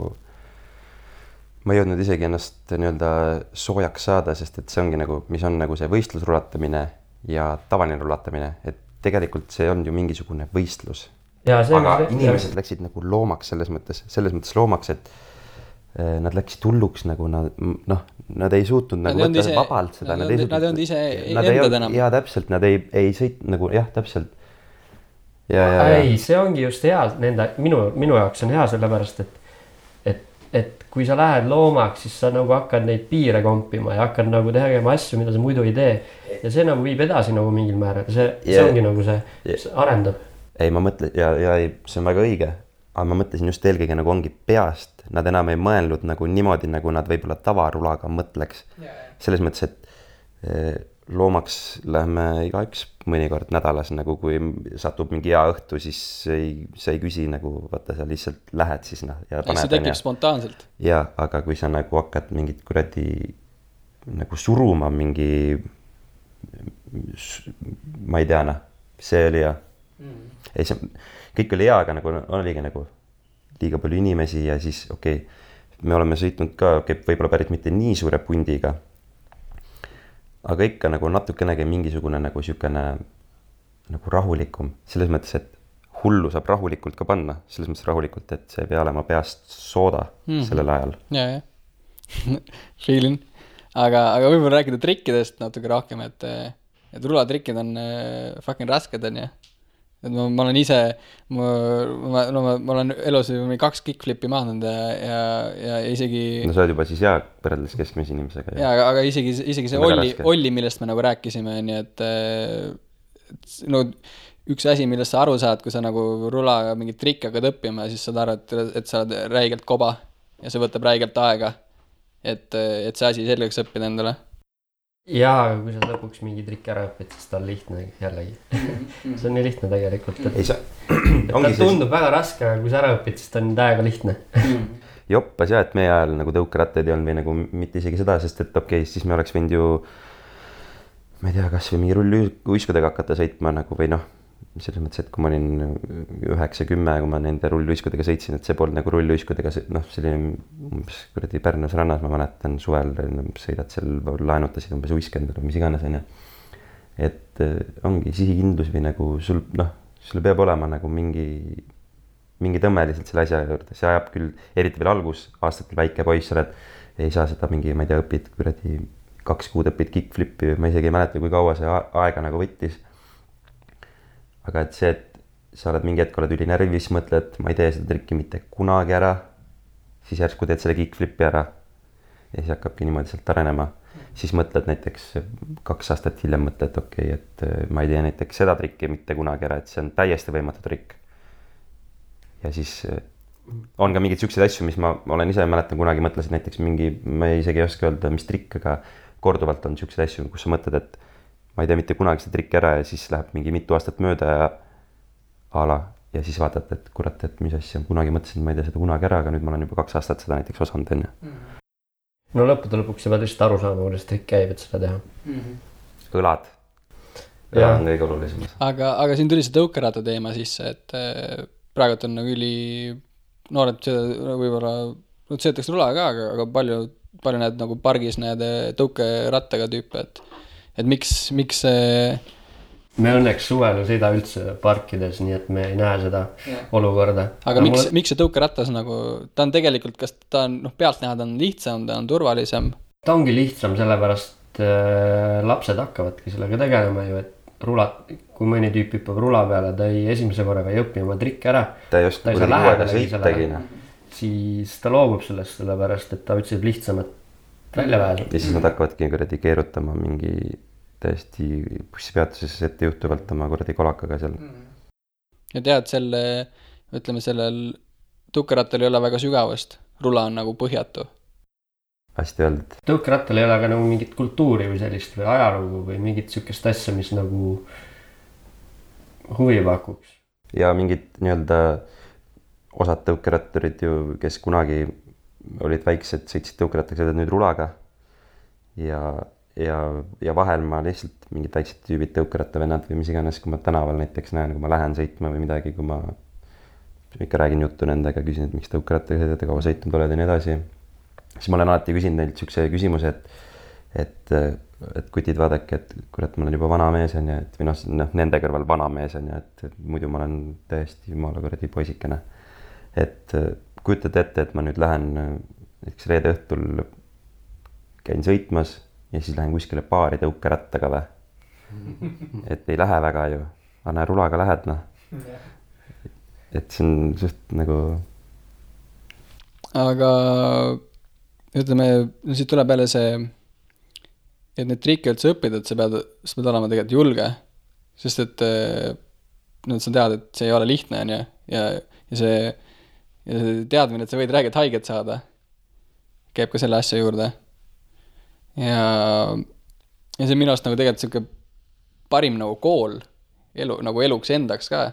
ma ei jõudnud isegi ennast nii-öelda soojaks saada, sest et see ongi nagu, mis on nagu see võistlusrulatamine ja tavaline rulatamine, et tegelikult see on ju mingisugune võistlus. Aga inimesed läksid nagu loomaks selles mõttes loomaks, et nad läksid hulluks nagu nad ei suutnud nagu võtta vabalt seda. Nad ei olnud ise endad enam. Jaa, täpselt, nad ei sõit nagu, jah, täpselt. Ei, see ongi just hea, minu jaoks on hea sellepärast, et kui sa lähed loomaks, siis sa nagu hakkad neid piire kompima ja hakkad nagu tegema asju, mida sa muidu ei tee. Ja see nagu viib edasi nagu mingil määral. See ongi nagu see arendab. Ei, ma mõtlen, ja see on väga õige, aga ma mõtlesin just eelkõige nagu ongi peast. Nad enam ei mõelnud nagu niimoodi, nagu nad võib-olla tavarulaga mõtleks. Selles mõttes, et loomaks lähme igaüks mõnikord nädalas, nagu kui satub mingi hea õhtu, siis sa ei küsi nagu, vaata sa lihtsalt lähed siis ja paned. See tekib spontaanselt. Ja, aga kui sa nagu hakkad mingit kuradi nagu suruma mingi, ma ei tea, see oli hea. Ei, see kõik oli hea, aga nagu oligi nagu liiga palju inimesi ja siis me oleme sõitnud ka, võib-olla päris mitte nii suure pundiga, aga ikka nagu natukenegi mingisugune nagu siukene nagu rahulikum, selles mõttes, et hullu saab rahulikult ka panna, selles mõttes rahulikult, et see ei pea olema peast sooda sellel ajal. Ja. Feelin. Aga võib-olla rääkida trikkidest natuke rohkem, et rulatrikkid on fucking rasked, on ja. Et ma olen ise, ma olen elus 2 kickflipi maandanud ja isegi... No sa oled juba siis hea võrreldes keskmise inimesega. Ja, aga isegi see olli, millest me nagu rääkisime, nii et no, üks asi, millest sa aru saad, kui sa nagu rula mingit trikki hakkad õppima, siis saad aru, et sa oled räigelt koba ja see võtab räigelt aega, et see asi selgeks õppida endale. Jaa, aga kui sa lõpuks mingi trikk ära õpid, siis ta on lihtne jällegi. See on nii lihtne tegelikult. Ta tundub väga raske, aga kui sa ära õpid, siis ta on täiega lihtne. Joppas jah, et meie ajal nagu tõukerattaid ei olnud või nagu mitte isegi seda, sest et siis me oleks võinud ju, ma ei tea, kas või mingi rulluiskudega hakata sõitma nagu või noh, selles mõttes, et kui ma olin 9-10, kui ma nende rulluiskudega sõitsin, et see polnud nagu rulluiskudega, selline umbes kuradi Pärnus rannas, ma mäletan suvel, sõidad seal, laenutasid umbes uiskendada, mis iganes on ja. Et ongi sihikindlus või nagu sul peab olema nagu mingi tõmme lihtsalt selle asja juurde, see ajab küll, eriti veel algus, aastatel väike poiss oled, ei saa seda mingi, ma ei tea, õpid kuradi 2 kuud õpid kickflipi, ma isegi ei mäleta, kui kaua see aega nagu võttis. Aga et see, et sa oled mingi hetk, oled üli närvis, mõtled, ma ei tee seda trikki mitte kunagi ära, siis järsku teed selle kickflipi ära ja siis hakkabki niimoodi sealt arenema. Siis mõtled näiteks 2 aastat hiljem mõtled, et ma ei tee näiteks seda trikki mitte kunagi ära, et see on täiesti võimatu trikk. Ja siis on ka mingid siuksed asju, mis ma olen ise mäletan kunagi mõtlesin näiteks mingi, ma isegi ei oska öelda, mis trikk, aga korduvalt on siuksed asju, kus sa mõtled, et ma ei tea mitte kunagi seda trikki ära ja siis läheb mingi mitu aastat mööda ja siis vaatad, et kurat, et mis asja, kunagi mõtlesin, ma ei tea seda kunagi ära, aga nüüd ma olen juba 2 aastat seda näiteks osanud enne. No lõppude lõpuks sa pead lihtsalt aru saama, kuidas trikk käib, et seda teha. Õlad. Ja on kõige olulisem. Aga siin tuli see tõukeratta teema sisse, et praegult on nagu üli noored võib-olla, sõitakse rula ka, aga palju need nagu pargis need tõukerattaga tüüpe, et miks me õnneks suvel ei sõida üldse parkides, nii et me ei näe seda olukorda. Aga miks see tõukeratas nagu, ta on tegelikult, kas ta on, pealt näha ta on lihtsam, ta on turvalisem? Ta ongi lihtsam, sellepärast lapsed hakkavadki sellega tegelema ju, et kui mõni tüüp hüppab rula peale, ta esimese korraga ei õpi oma trikki ära. Ta ei oska kuidagi sõitagi. Siis ta loobub sellest, sellepärast, et ta otsib lihtsamat välja pääsu. Ja siis nad hakkavadki kuradi keerutama mingi täiesti bussipeatuses ette juhtuvalt oma kuradi kolakaga seal. Ja tead, sellel tõukerattal ei ole väga sügavust. Rula on nagu põhjatu. Hästi öeldud. Tõukerattal ei ole ka nagu mingit kultuuri või sellist või ajalugu või mingit sükest asja, mis nagu huvi pakuks. Ja mingid nii-öelda osad tõukeratturid ju, kes kunagi olid väiksed, sõitsid tõukerattaga, sõidad nüüd rulaga ja vahel ma lihtsalt mingid väiksed tüübid tõukerattavennad või mis iganes, kui ma tänaval näiteks näen, kui ma lähen sõitma või midagi, kui ma ikka räägin juttu nendega, küsin, et miks tõukerattaga sõidad ja kaua sõitnud oled ja nii edasi. siis ma olen alati küsinud neilt siukse küsimuse, et kutid vaadake, et kurat, ma olen juba vana mees on ju, et või noh, nende kõrval vana mees on ju, et muidu ma olen täiesti jumala kuradi poisikene. Et kujutad ette, et ma nüüd lähen näiteks reede õhtul käin sõitmas ja siis lähen kuskile baari tõukerattaga või. Et ei lähe väga ju, aga näe, rulaga lähed noh. Et see on suht nagu. Aga ütleme, siit tuleb jälle see, et need trikke üldse õppida, et sa pead olema tegelikult julge, sest et sa tead, et see ei ole lihtne on ju, ja see teadmine, et sa võid räägida haiget saada, käib ka selle asja juurde. Ja see minu arust nagu tegelikult selline parim nagu kool elu, nagu eluks endaks ka,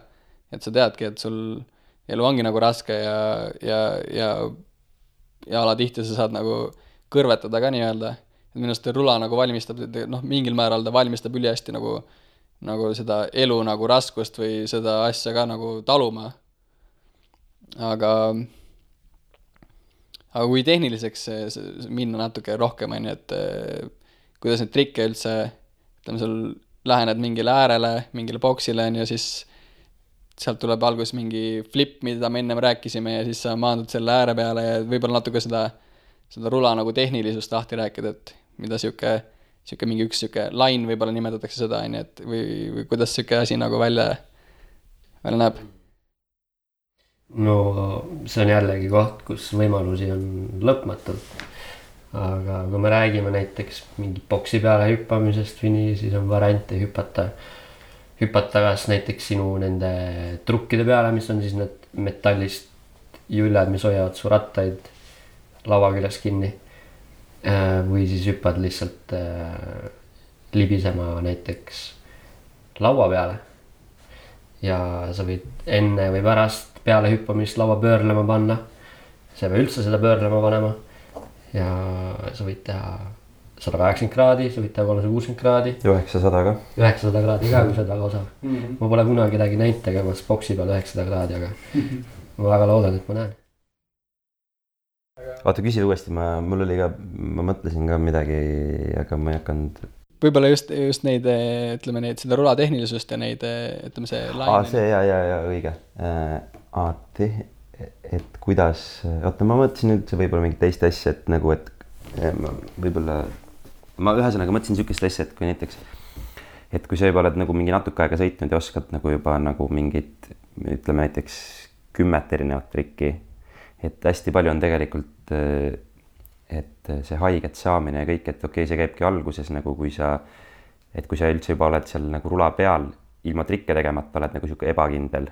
et sa teadki, et sul elu ongi nagu raske ja alatihti sa saad nagu kõrvetada ka nii-öelda. Et minu arust rula nagu valmistab, noh, mingil määral ta valmistab ülihästi nagu seda elu nagu raskust või seda asja ka nagu taluma. Aga kui tehniliseks minna natuke rohkem on ju, et kuidas neid trikke üldse, ütleme, sul lähened mingile äärele, mingile boksile on ju, siis sealt tuleb algus mingi flip, mida me ennem rääkisime ja siis sa maandud selle ääre peale ja võib-olla natuke seda rula nagu tehnilisust lahti rääkida, et mida siuke mingi üks siuke line võib-olla nimetatakse seda on ju, et või kuidas siuke asi nagu välja näeb. No see on jällegi koht, kus võimalusi on lõpmatult. Aga kui me räägime näiteks mingi boksi peale hüppamisest või nii, siis on variante hüpata kas näiteks sinu nende trukkide peale, mis on siis need metallist jüljad, mis hoiavad su rattaid laua küljes kinni. Või siis hüppad lihtsalt libisema näiteks laua peale. Ja sa võid enne või pärast peale hüppamist laua pöörlema panna. Sa ei või üldse seda pöörlema panema. Ja sa võid teha 180 kraadi, sa võid teha 360 kraadi. 900 ka. 900 kraadi ka, kui sa oled väga osav. Ma pole kunagi kedagi näinud tegemas boksi peal 900 kraadi, aga ma väga loodan, et ma näen. Vaata, küsi uuesti, ma mõtlesin ka midagi, aga ma ei hakanud. Võib-olla just neid, ütleme neid, seda rula tehnilisust ja neid, ütleme see laine. See ja õige. Et kuidas, oota, ma mõtlesin üldse võib-olla mingit teist asja, et nagu, et võib-olla ma ühesõnaga mõtlesin sükest asja, et kui näiteks, et kui sa juba oled nagu mingi natuke aega sõitnud ja oskad nagu juba nagu mingit, ütleme näiteks 10 erinevat trikki, et hästi palju on tegelikult, et see haiget saamine ja kõik, et okei, see käibki alguses nagu kui sa üldse juba oled seal nagu rula peal, ilma trikke tegemata oled nagu siuke ebakindel,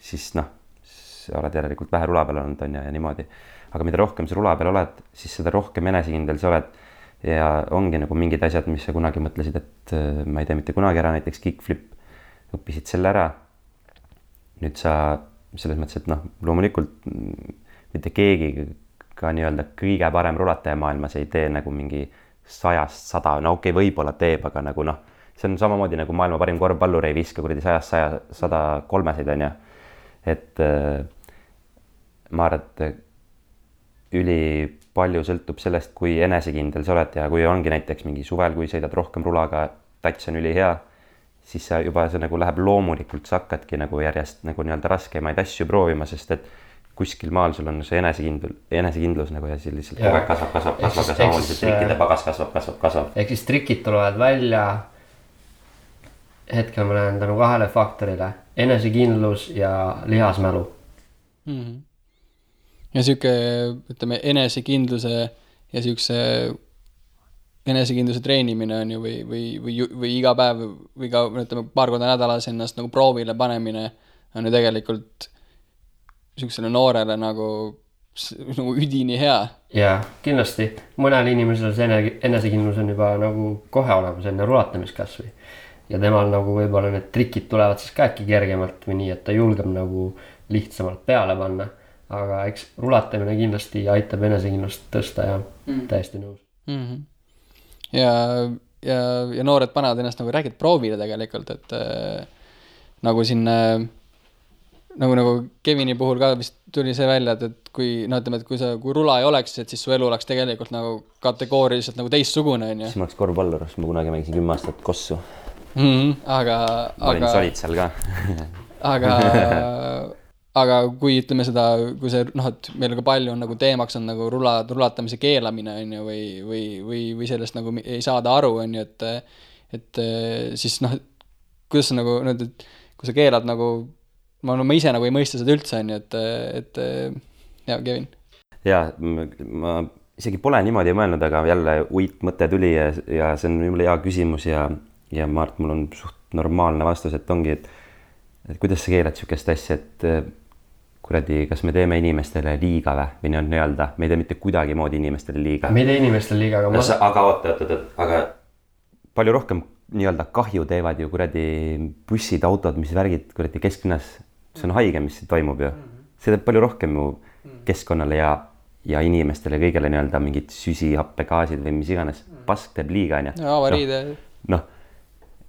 siis noh, sa oled järelikult vähe rula peal olnud on ja niimoodi. Aga mida rohkem sa rula peal oled, siis seda rohkem enesekindel sa oled ja ongi nagu mingid asjad, mis sa kunagi mõtlesid, et ma ei tee mitte kunagi ära, näiteks kickflip, õppisid selle ära. Nüüd sa selles mõttes, et noh, loomulikult mitte keegi ka nii-öelda kõige parem rulataja maailmas ei tee nagu mingi 100, no okei, võib-olla teeb, aga nagu noh, see on samamoodi nagu maailma parim korvpallur ei viska kuradi 100, 103 on ju. Et ma arvan, et üli palju sõltub sellest, kui enesekindel sa oled ja kui ongi näiteks mingi suvel, kui sõidad rohkem rulaga, tats on üli hea, siis sa juba see nagu läheb loomulikult, sa hakkadki nagu järjest nagu nii-öelda raskemaid asju proovima, sest et kuskil maal sul on see enesekindlus nagu ja siis lihtsalt kogu aeg kasvab ja samamoodi see trikkide pagas kasvab. Ehk siis trikid tulevad välja, hetkel ma näen tänu 2 faktorile, enesekindlus ja lihasmälu. Ja siuke, ütleme, enesekindluse ja siukse enesekindluse treenimine on ju või iga päev või ka ütleme, paar korda nädalas ennast nagu proovile panemine on ju tegelikult siuksele noorele nagu üdini hea. Jaa, kindlasti. Mõnel inimesel see enesekindlus on juba nagu kohe olemas enne rulatamist kasvõi. Ja temal nagu võib-olla need trikid tulevad siis ka äkki kergemalt või nii, et ta julgeb nagu lihtsamalt peale panna. Aga eks rulatamine kindlasti aitab enesekindlust tõsta ja täiesti nõus. Ja noored panevad ennast nagu räägid proovile tegelikult, et nagu siin nagu Kevini puhul ka vist tuli see välja, et kui, no ütleme, et kui rula ei oleks, et siis su elu oleks tegelikult nagu kategooriliselt nagu teistsugune, on ju. Siis ma oleks korvpallur, sest ma kunagi mängisin 10 aastat kossu. Aga sa olid seal ka. aga kui ütleme seda, kui see, noh, et meil ka palju on nagu teemaks on nagu rulatamise keelamine, on ju, või sellest nagu ei saada aru, on ju, et siis noh, kuidas sa nagu, et kui sa keelad nagu, ma ise nagu ei mõista seda üldse, on ju, et jah, Kevin. Jaa, ma isegi pole niimoodi mõelnud, aga jälle mõte tuli ja see on mulle hea küsimus ja ma arvan, et mul on suht normaalne vastus, et ongi, et kuidas sa keelad sihukest asja, et kuradi, kas me teeme inimestele liiga või nii-öelda, me ei tee mitte kuidagi moodi inimestele liiga. Me ei tee inimestele liiga, aga oota, aga palju rohkem nii-öelda kahju teevad ju kuradi bussid, autod, mis värgid kuradi kesklinnas. See on haige, mis toimub ju. See teeb palju rohkem ju keskkonnale ja inimestele kõigele nii-öelda mingid süsihappegaasid või mis iganes. Pask teeb liiga, on ju. Avariide. Noh,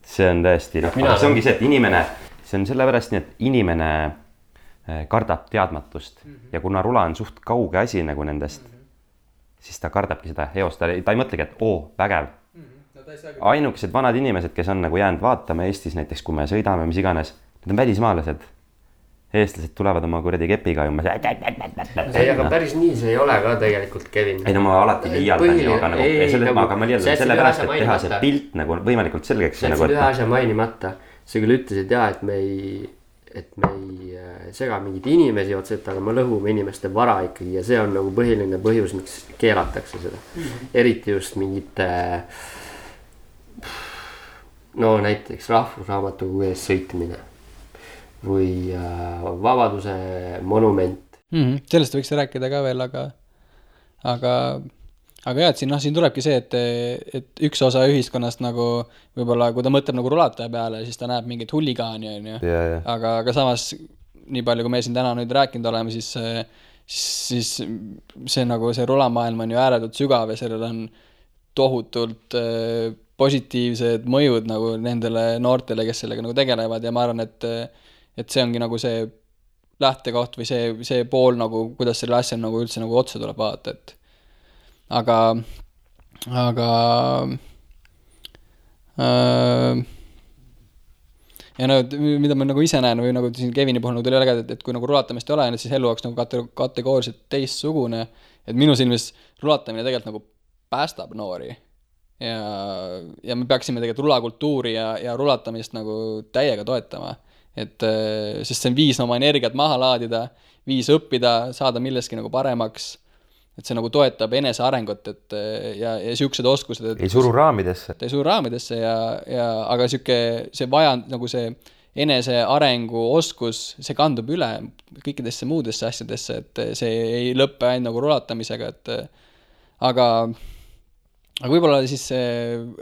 see on tõesti, see ongi see, et inimene, see on sellepärast nii, et inimene kardab teadmatust ja kuna rula on suht kauge asi nagu nendest, siis ta kardabki seda eost, ta ei mõtlegi, et vägev. Ainukesed vanad inimesed, kes on nagu jäänud vaatama Eestis näiteks, kui me sõidame, mis iganes, need on välismaalased. Eestlased tulevad oma kuradi kepiga ja ei, aga päris nii see ei ole ka tegelikult, Kevin. Ei, no ma alati liialdan ju, aga ma liialdan sellepärast, et teha see pilt nagu võimalikult selgeks. See on ühe asja mainimata. Sa küll ütlesid jah, et me ei sega mingid inimesi otseselt, aga me lõhume inimeste vara ikkagi ja see on nagu põhiline põhjus, miks keelatakse seda. Eriti just mingite näiteks rahvusraamatukogu ees sõitmine või Vabaduse monument. Sellest võiks rääkida ka veel, aga jah, et siin tulebki see, et üks osa ühiskonnast nagu võib-olla, kui ta mõtleb nagu rulataja peale, siis ta näeb mingit huligaani, on ju. Aga samas, nii palju, kui me siin täna nüüd rääkinud oleme, siis see nagu see rulamaailm on ju ääretult sügav ja sellel on tohutult positiivsed mõjud nagu nendele noortele, kes sellega nagu tegelevad ja ma arvan, et see ongi nagu see lähtekoht või see pool nagu, kuidas selle asja nagu üldse nagu otsa tuleb vaadata, et aga ja mida ma nagu ise näen või nagu siin Kevini puhul nagu tuli väga, et kui nagu rulatamist ei ole, siis elu oleks nagu kategooriliselt teistsugune, et minu silmis rulatamine tegelikult nagu päästab noori ja me peaksime tegelikult rulakultuuri ja rulatamist nagu täiega toetama, et sest see on viis oma energiat maha laadida, viis õppida, saada milleski nagu paremaks, et see nagu toetab enese arengut, et ja siuksed oskused, et ei suru raamidesse. Ei suru raamidesse aga see vajand nagu see enese arengu oskus, see kandub üle kõikidesse muudesse asjadesse, et see ei lõppe ainult nagu rulatamisega, et aga võib-olla siis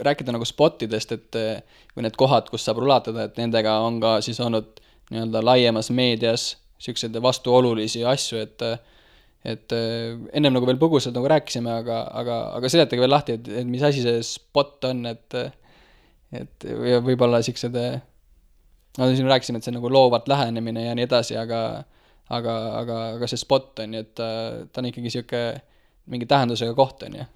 rääkida nagu spottidest, et või need kohad, kus saab rulatada, et nendega on ka siis olnud nii-öelda laiemas meedias siukseid vastuolulisi asju, et ennem nagu veel põgusalt nagu rääkisime, aga seletage veel lahti, et mis asi see spot on, et võib-olla siuksed, siin rääkisime, et see nagu loovat lähenemine ja nii edasi, aga see spot on, et ta on ikkagi siuke mingi tähendusega koht on ju.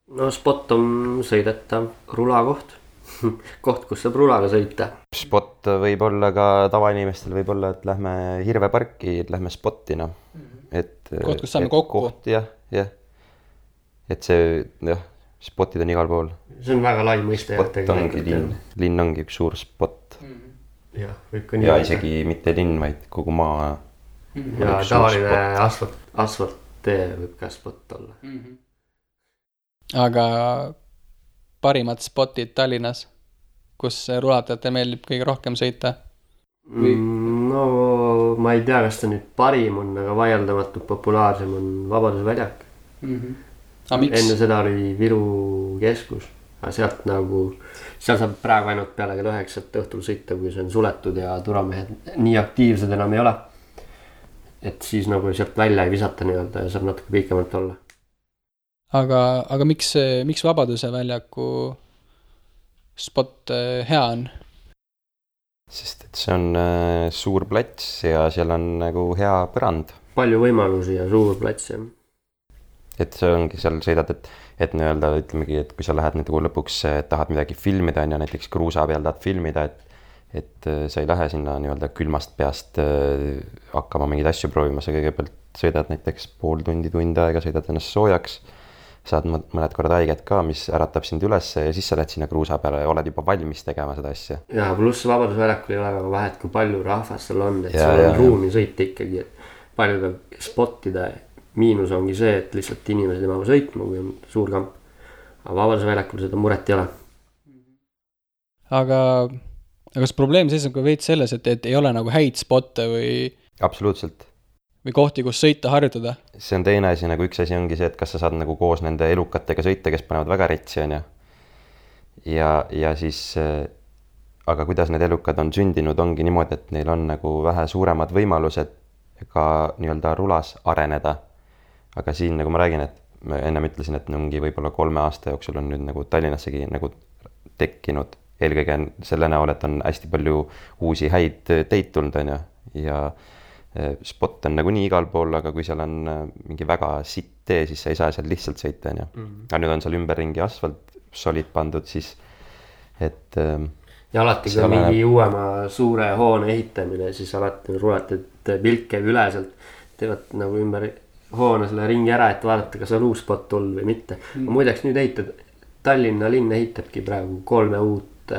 No spot on sõidetav rulakoht, koht, kus saab rulaga sõita. Spot võib olla ka tavainimestel, võib olla, et lähme Hirveparki, et lähme spotti, noh. Koht, kus saame kokku. Jah. Et see, spotid on igal pool. See on väga lai mõiste. Spot ongi linn ongi üks suur spot. Ja, võib ka nii. Ja isegi mitte linn, vaid kogu maa. Ja tavaline asfalttee võib ka spot olla. Aga parimad spotid Tallinnas, kus rulatajatel meeldib kõige rohkem sõita? No ma ei tea, kas ta nüüd parim on, aga vaieldamatult populaarsem on Vabaduse väljak. Enne seda oli Viru keskus, aga seal saab praegu ainult peale kell 9 õhtul sõita, kui see on suletud ja turvamehed nii aktiivsed enam ei ole. Et siis nagu sealt välja ei visata nii-öelda ja saab natuke pikemalt olla. Aga miks Vabaduse väljaku spot hea on? sest et see on suur plats ja seal on nagu hea põrand. Palju võimalusi ja suur plats, jah. Et see ongi, seal sõidad, et nii-öelda ütlemegi, et kui sa lähed nagu lõpuks, tahad midagi filmida, on ja näiteks kruusa peal tahad filmida, et sa ei lähe sinna nii-öelda külmast peast hakkama mingeid asju proovima, sa kõigepealt sõidad näiteks pool tundi, tund aega, sõidad ennast soojaks, saad mõned korrad haiget ka, mis äratab sind üles ja siis sa lähed sinna kruusa peale ja oled juba valmis tegema seda asja. Ja pluss Vabadusväljakul ei ole väga vahet, kui palju rahvast seal on, et seal on ruumi sõita ikkagi, et palju peab spottida. Miinus ongi see, et lihtsalt inimesed ei mahu sõitma, kui on suur kamp. Aga Vabadusväljakul seda muret ei ole. Aga kas probleem seisab ka veits selles, et ei ole nagu häid spotte või... Absoluutselt. Või kohti, kus sõita, harjutada? See on teine asi, nagu üks asi ongi see, et kas sa saad nagu koos nende elukatega sõita, kes panevad väga retsi, on ja siis, aga kuidas need elukad on sündinud, ongi niimoodi, et neil on nagu vähe suuremad võimalused ka nii-öelda rulas areneda. Aga siin, nagu ma räägin, et ma ennem ütlesin, et mingi võib-olla 3 aasta jooksul on nüüd nagu Tallinnassegi nagu tekkinud. Eelkõige selle näol, et on hästi palju uusi häid teid tulnud, on ja spot on nagu nii igal pool, aga kui seal on mingi väga sitt tee, siis sa ei saa seal lihtsalt sõita, on Aga nüüd on seal ümberringi asfalt solid pandud, siis et... Ja alati, kui mingi uuema suure hoone ehitamine, siis alati rulad, et pilk käib üle sealt, teevad nagu ümber hoone selle ringi ära, et vaadata, kas on uus spot tulnud või mitte. Muideks nüüd ehitad, Tallinna linn ehitabki praegu 3 uut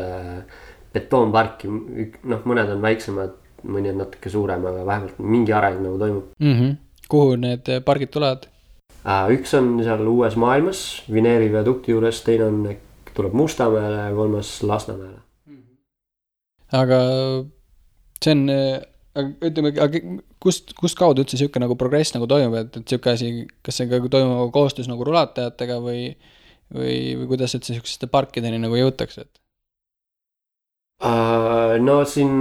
betoonparki, mõned on väiksemad, mõni on natuke suurem, aga vähemalt mingi areng nagu toimub. Kuhu need pargid tulevad? Üks on seal Uues Maailmas, Vineeri viadukti juures, teine on, tuleb Mustamäele ja 3. Lasnamäele. Aga see on, ütleme, kust kaudu üldse siuke nagu progress nagu toimub, et siuke asi, kas see toimub koostöös nagu rulatajatega või kuidas üldse siukseste parkideni nagu jõutakse? No siin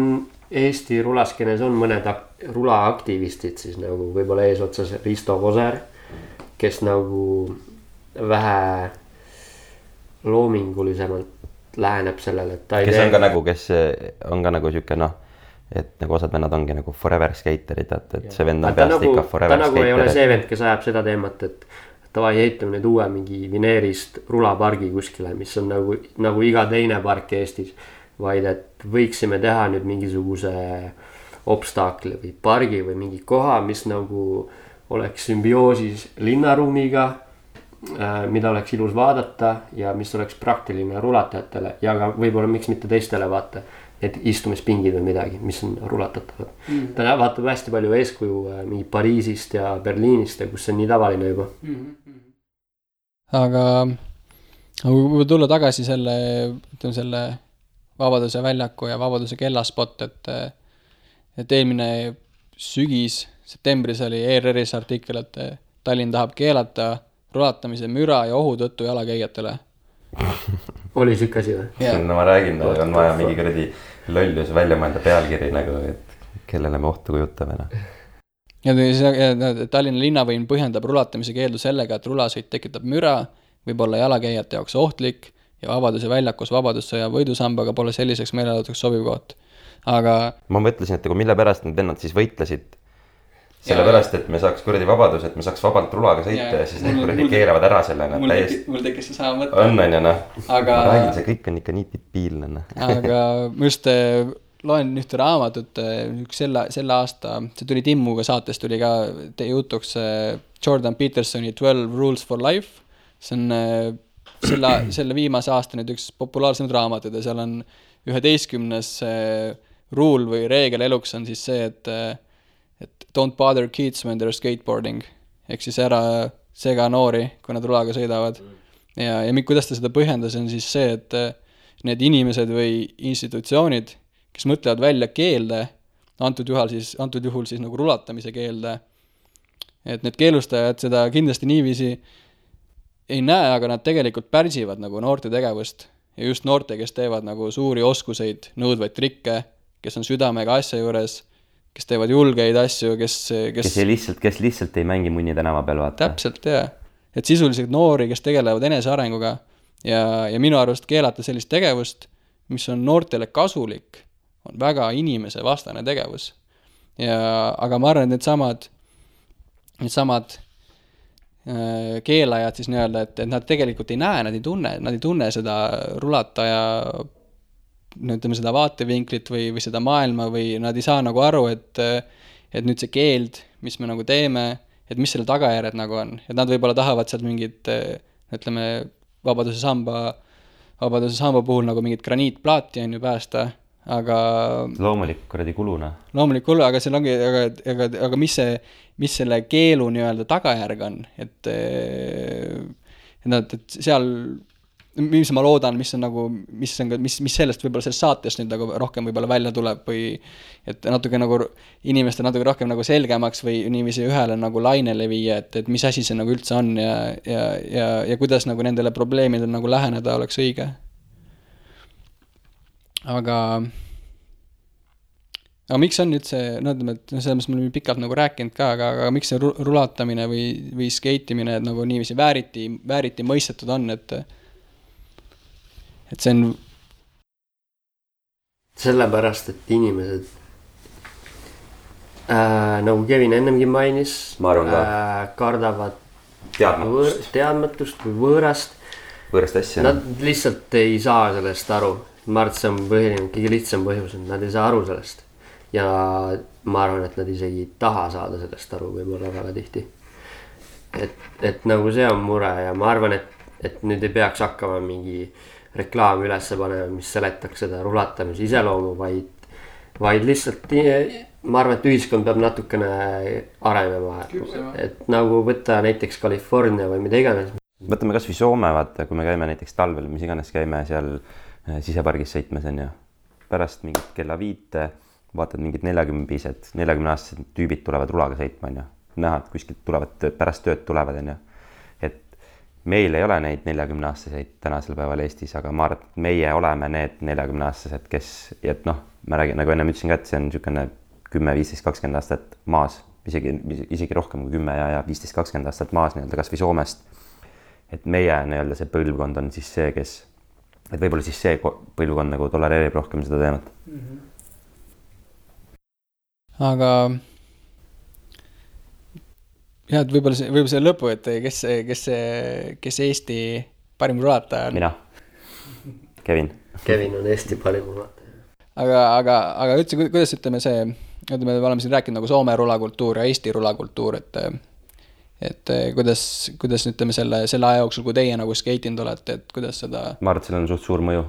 Eesti rulaskenes on mõned rulaaktivistid siis nagu võib-olla eesotsas Risto Koser, kes nagu vähe loomingulisemalt läheneb sellele, et ta ei kes on ka nagu siuke et nagu osad vennad ongi nagu forever skaterid, et see vend on peast nagu, ikka forever skater. Ta nagu ei ole see vend, kes ajab seda teemat, et tavai ehitame nüüd uue mingi Vineerist rulapargi kuskile, mis on nagu iga teine park Eestis, vaid et võiksime teha nüüd mingisuguse obstaakli või pargi või mingi koha, mis nagu oleks sümbioosis linnaruumiga, mida oleks ilus vaadata ja mis oleks praktiline rulatajatele ja ka võib-olla miks mitte teistele vaata, et istumispingid või midagi, mis on rulatatavad. Ta vaatab hästi palju eeskuju mingi Pariisist ja Berliinist, kus see on nii tavaline juba. Aga kui tulla tagasi selle Vabaduse väljaku ja Vabaduse kellaspot, et eelmine sügis, septembris oli ERR-is artikkel, et Tallinn tahab keelata rulatamise müra ja ohu tõttu jalakäijatele. Oli siuke asi või? Yeah. No ma räägin, on vaja mingi kuradi lollus välja mõelda pealkiri nagu, et kellele me ohtu kujutame. Ja Tallinna linnavõim põhjendab rulatamise keeldu sellega, et rulasõit tekitab müra, võib olla jalakäijate jaoks ohtlik ja Vabaduse väljakus Vabadussõja võidusambaga pole selliseks meelelauduseks sobiv koht. Aga... Ma mõtlesin, et mille pärast need vennad siis võitlesid. Sellepärast, et me saaks kuradi vabadus, et me saaks vabalt rulaga sõita ja siis need kuradi keelavad ära selle. Mul tekkis see sama mõte. On ja Aga... Ma räägin, see kõik on ikka nii tipiilne. Aga ma just loen ühte raamatut, selle aasta, see tuli Timmuga saates, tuli ka jutuks Jordan Petersoni 12 Rules for Life. See on selle viimase aasta nüüd üks populaarsemad raamatud ja seal on 11. rule või reegel eluks on siis see, et don't bother kids when they're skateboarding. Ehk siis ära sega noori, kui nad rulaga sõidavad. Ja kuidas ta seda põhjendas, on siis see, et need inimesed või institutsioonid, kes mõtlevad välja keelde, antud juhul siis nagu rulatamise keelde, et need keelustajad seda kindlasti niiviisi ei näe, aga nad tegelikult pärsivad nagu noorte tegevust ja just noorte, kes teevad nagu suuri oskuseid, nõudvaid trikke, kes on südamega asja juures, kes teevad julgeid asju, kes lihtsalt ei mängi munni tänava peal vaata. Täpselt, jah. Et sisuliselt noori, kes tegelevad enesearenguga ja minu arust keelata sellist tegevust, mis on noortele kasulik, on väga inimesevastane tegevus. Aga ma arvan, et needsamad keelajad siis nii-öelda, et nad tegelikult ei näe, nad ei tunne seda rulataja, ütleme seda vaatevinklit või seda maailma või nad ei saa nagu aru, et nüüd see keeld, mis me nagu teeme, et mis selle tagajärjed nagu on. Et nad võib-olla tahavad sealt mingit, ütleme, Vabaduse samba puhul nagu mingit graniitplaati on ju päästa, aga loomulik kuradi kuluna. Loomulik kulu, aga seal ongi, aga mis selle keelu nii-öelda tagajärg on, et seal, mis ma loodan, mis sellest võib-olla sellest saatest nüüd nagu rohkem võib-olla välja tuleb või et natuke nagu inimestel natuke rohkem nagu selgemaks või niiviisi ühele nagu lainele viia, et mis asi see nagu üldse on ja kuidas nagu nendele probleemidele nagu läheneda oleks õige. Aga miks on nüüd see, ütleme, et selles me oleme pikalt nagu rääkinud ka, aga miks see rulatamine või skeitimine nagu niiviisi vääriti mõistetud on, et see on sellepärast, et inimesed nagu Kevin ennemgi mainis, kardavad teadmatust või võõrast asja. Nad lihtsalt ei saa sellest aru. Ma arvan, et see on kõige lihtsam põhjus, et nad ei saa aru sellest. Ja ma arvan, et nad isegi ei taha saada sellest aru võib-olla väga tihti. Et nagu see on mure ja ma arvan, et nüüd ei peaks hakkama mingi reklaam üles panema, mis seletaks seda rulatamise iseloomu, vaid lihtsalt ma arvan, et ühiskond peab natukene arenema. Et nagu võtta näiteks California või mida iganes. Võtame kas või Soome, vaata, kui me käime näiteks talvel, mis iganes käime seal sisepargis sõitmes on ju. Pärast mingit kella 5 vaatad mingid 40-aastased tüübid tulevad rulaga sõitma on ju. Näha, et kuskilt tulevad pärast tööd tulevad on ju. Et meil ei ole neid 40-aastaseid tänasel päeval Eestis, aga ma arvan, et meie oleme need 40-aastased, kes, et noh, ma räägin, nagu enne ütlesin ka, et see on niisugune 10, 15, 20 aastat maas, isegi rohkem kui 10 ja 15, 20 aastat maas nii-öelda kas või Soomest. Et meie nii-öelda see põlvkond on siis see, kes, et võib-olla siis see põlvkond nagu tolereerib rohkem seda teemat. Aga jah, et võib-olla see lõpu, et kes Eesti parim rulataja on? Mina. Kevin. Kevin on Eesti parim rulataja. Aga üldse, kuidas ütleme see, me oleme siin rääkinud nagu Soome rulakultuur ja Eesti rulakultuur, et kuidas ütleme selle aja jooksul, kui teie nagu skeitinud olete, et kuidas seda... Ma arvan, et sellel on suht suur mõju,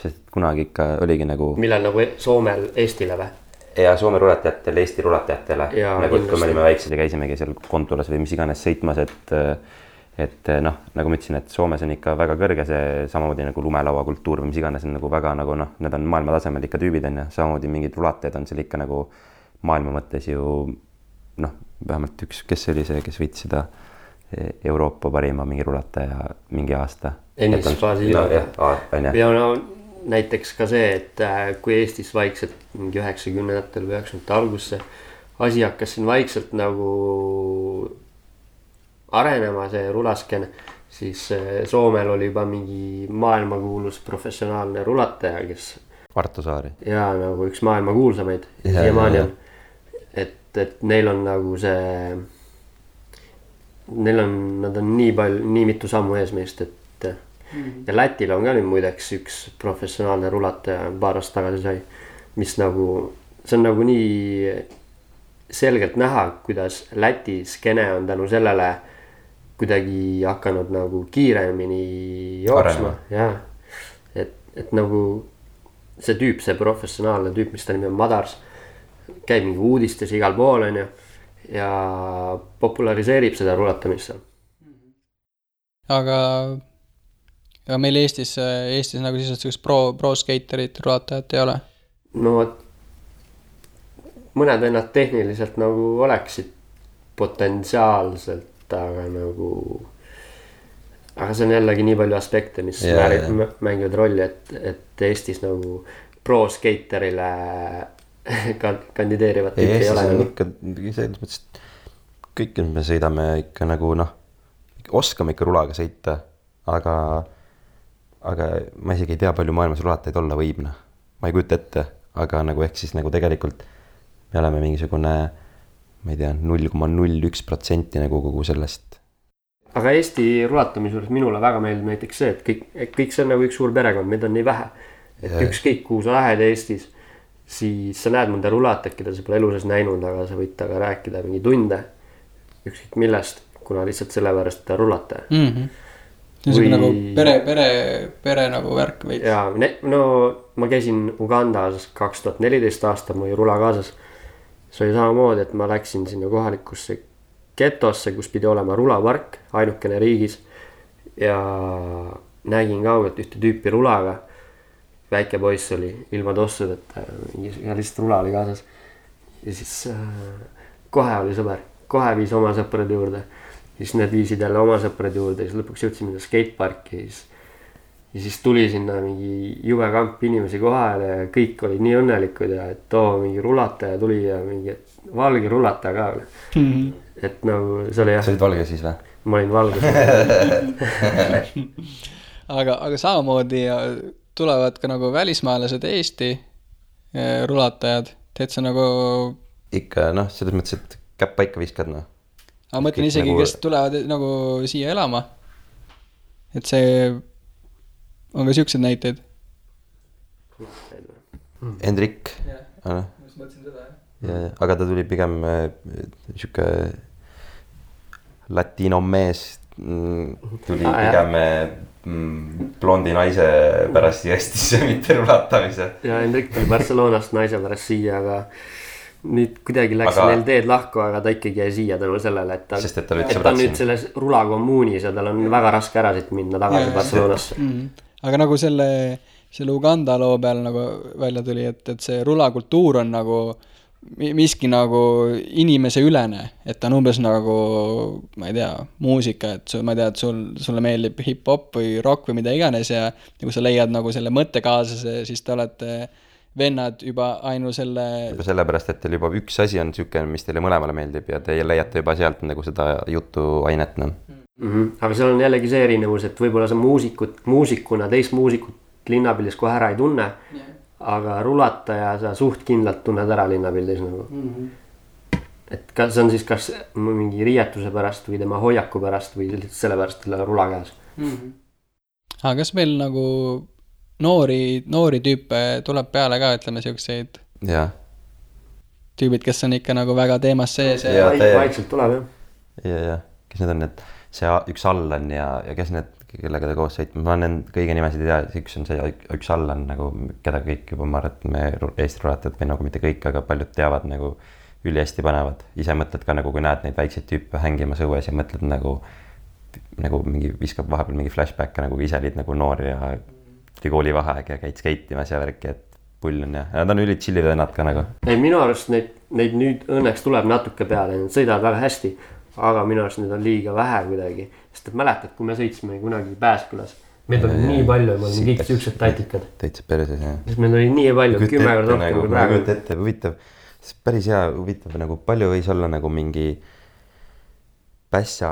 sest kunagi ikka oligi nagu... Millal nagu Soomel Eestile või? Ja Soome rulatajatele, Eesti rulatajatele. Nagu kui me olime väiksed ja käisimegi seal Kontulas või mis iganes sõitmas, et noh, nagu ma ütlesin, et Soomes on ikka väga kõrge see samamoodi nagu lumelaua kultuur või mis iganes on nagu väga nagu noh, need on maailma tasemel ikka tüübid on ja samamoodi mingid rulatajad on seal ikka nagu maailma mõttes ju noh, vähemalt üks, kes oli see, kes võitis seda Euroopa parima mingi rulataja mingi aasta. Ennis Faasila. Ja no näiteks ka see, et kui Eestis vaikselt mingi 90-ndatel või 90-ndate algusse asi hakkas siin vaikselt nagu arenema see rulasken, siis Soomel oli juba mingi maailmakuulus professionaalne rulataja, kes Arto Saari. Ja nagu üks maailmakuulsamaid siiamaani on. Et neil on nagu see, nad on nii mitu sammu ees meist, et ja Lätil on ka nüüd muideks üks professionaalne rulataja paar aastat tagasi sai, mis nagu, see on nagu nii selgelt näha, kuidas Läti skene on tänu sellele kuidagi hakanud nagu kiiremini jooksma. Ja, et nagu see tüüp, see professionaalne tüüp, mis ta nimi on Madars, käib mingi uudistes igal pool on ju ja populariseerib seda rulatamist seal. Aga meil Eestis nagu siis pro-skaterid, rulatajad ei ole? No mõned vennad tehniliselt nagu oleksid potentsiaalselt, aga see on jällegi nii palju aspekte, mis mängivad rolli, et Eestis nagu pro-skaterile kandideerivad tüüpi ei ole. Ikka selles mõttes, et kõik me sõidame ikka nagu noh, oskame ikka rulaga sõita, aga ma isegi ei tea palju maailmas rulatajaid olla võib. Ma ei kujuta ette, aga nagu ehk siis nagu tegelikult me oleme mingisugune, ma ei tea, 0,01% nagu kogu sellest. Aga Eesti rulatamise juures minule väga meeldib näiteks see, et kõik see on nagu üks suur perekond, meid on nii vähe. Et ükskõik kuhu sa lähed Eestis, siis sa näed mõnda rulatajat, keda sa pole elu sees näinud, aga sa võid taga rääkida mingi tunde, ükskõik millest, kuna lihtsalt sellepärast ta rulataja. See on nagu pere nagu värk veits. Ja, no ma käisin Ugandas 2014 aastal, ma oli rula kaasas. See oli samamoodi, et ma läksin sinna kohalikusse getosse, kus pidi olema rulapark, ainukene riigis. Ja nägin kaugelt ühte tüüpi rulaga. Väike poiss oli ilma tossudeta ja lihtsalt rula oli kaasas. Ja siis kohe oli sõber, kohe viis oma sõprade juurde. Siis need viisid jälle oma sõprade juurde ja siis lõpuks jõudsime skateparki ja siis tuli sinna mingi jube kamp inimesi kohale ja kõik olid nii õnnelikud ja et mingi rulataja tuli ja mingi valge rulataja ka. Et nagu see oli jah. Sa olid valge siis või? Ma olin valge. aga samamoodi tulevad ka nagu välismaalased Eesti rulatajad. Teed sa nagu... Ikka selles mõttes, et käpp paika viskad Aga mõtlen isegi, kes tulevad nagu siia elama. Et see on ka siuksed näiteid. Hendrik. Ma mõtlesin seda, jah. Aga ta tuli pigem siuke latino mees. Tuli pigem blondi naise pärast Eestisse, mitte rulatamise. Ja Hendrik tuli Barcelonast naise pärast siia, aga nüüd kuidagi läks neil teed lahku, aga ta ikkagi jäi siia tänu sellele, et ta nüüd selles rulakommuunis ja tal on väga raske ära siit minna tagasi Barcelonasse. Aga nagu selle Uganda loo peal nagu välja tuli, et see rulakultuur on nagu miski nagu inimese ülene, et ta on umbes nagu, ma ei tea, muusika, et ma ei tea, et sulle meeldib hip-hop või rock või mida iganes ja kui sa leiad nagu selle mõttekaaslase, siis te olete vennad juba ainu selle... Juba sellepärast, et teil juba üks asi on siuke, mis teile mõlemale meeldib ja te leiate juba sealt nagu seda jutuainet. Aga seal on jällegi see erinevus, et võib-olla sa muusikuna teist muusikut linnapildis kohe ära ei tunne, aga rulataja sa suht kindlalt tunned ära linnapildis nagu. Et see on siis kas mingi riietuse pärast või tema hoiaku pärast või sellepärast talle rula käes. Aga kas meil nagu... Noori tüüpe tuleb peale ka, ütleme siukseid tüübid, kes on ikka nagu väga teemas sees ja vaikselt tuleb ja kes need on need see üks Allan ja kes need, kellega ta koos sõitma, ma olen kõige nimesid ei tea, üks on see üks Allan nagu, keda kõik juba ma arvan, et me Eesti rulatajad või nagu mitte kõik, aga paljud teavad nagu ülihästi panevad, ise mõtled ka nagu kui näed neid väikseid tüüpe hängimas õues ja mõtled nagu mingi viskab vahepeal mingi flashback nagu ise olid nagu noor ja koolivaheaeg ja käid skeitimas ja värki, et pull on ja nad on ülit chillid vennad ka nagu. Ei, minu arust neid nüüd õnneks tuleb natuke peale, nad sõidavad väga hästi, aga minu arust need on liiga vähe kuidagi, sest et mäletad, kui me sõitsime kunagi Pääskülas, meid oli nii palju ja me olime kõik siuksed tatikad. Täitsa perses, jah. Sest meil oli nii palju, 10 korda rohkem kui praegu. Kujuta ette, huvitav, päris hea huvitav, nagu palju võis olla nagu mingi pässa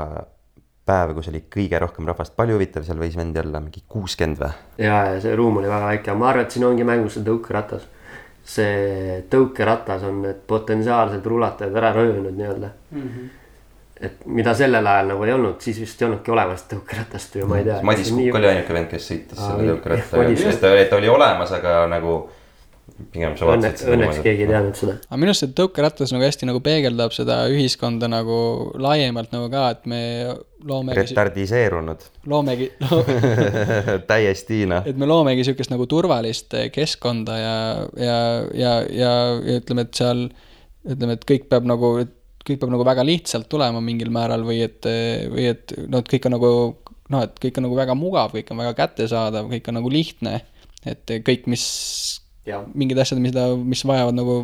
päev, kus oli kõige rohkem rahvast, palju huvitav, seal võis vendi olla mingi 60 või? Ja see ruum oli väga väike, ma arvan, et siin ongi mängus see tõukeratas. See tõukeratas on need potentsiaalsed rulatajad ära röönud nii-öelda. Et mida sellel ajal nagu ei olnud, siis vist ei olnudki olemas tõukeratast või ma ei tea. Madis Kukk oli ainuke vend, kes sõitis selle tõukeratta. Ta oli olemas, aga nagu pigem sa vaatasid. Õnneks keegi ei teadnud seda. Aga minu arust see tõukeratas nagu hästi nagu peegeldab seda ühiskonda nagu laiemalt nagu ka, et me loomegi... Retardiseerunud. Loomegi... Täiesti, Et me loomegi siukest nagu turvalist keskkonda ja ütleme, et seal, ütleme, et kõik peab nagu väga lihtsalt tulema mingil määral või et kõik on nagu, et kõik on nagu väga mugav, kõik on väga kättesaadav, kõik on nagu lihtne, et kõik, mingid asjad, mis vajavad nagu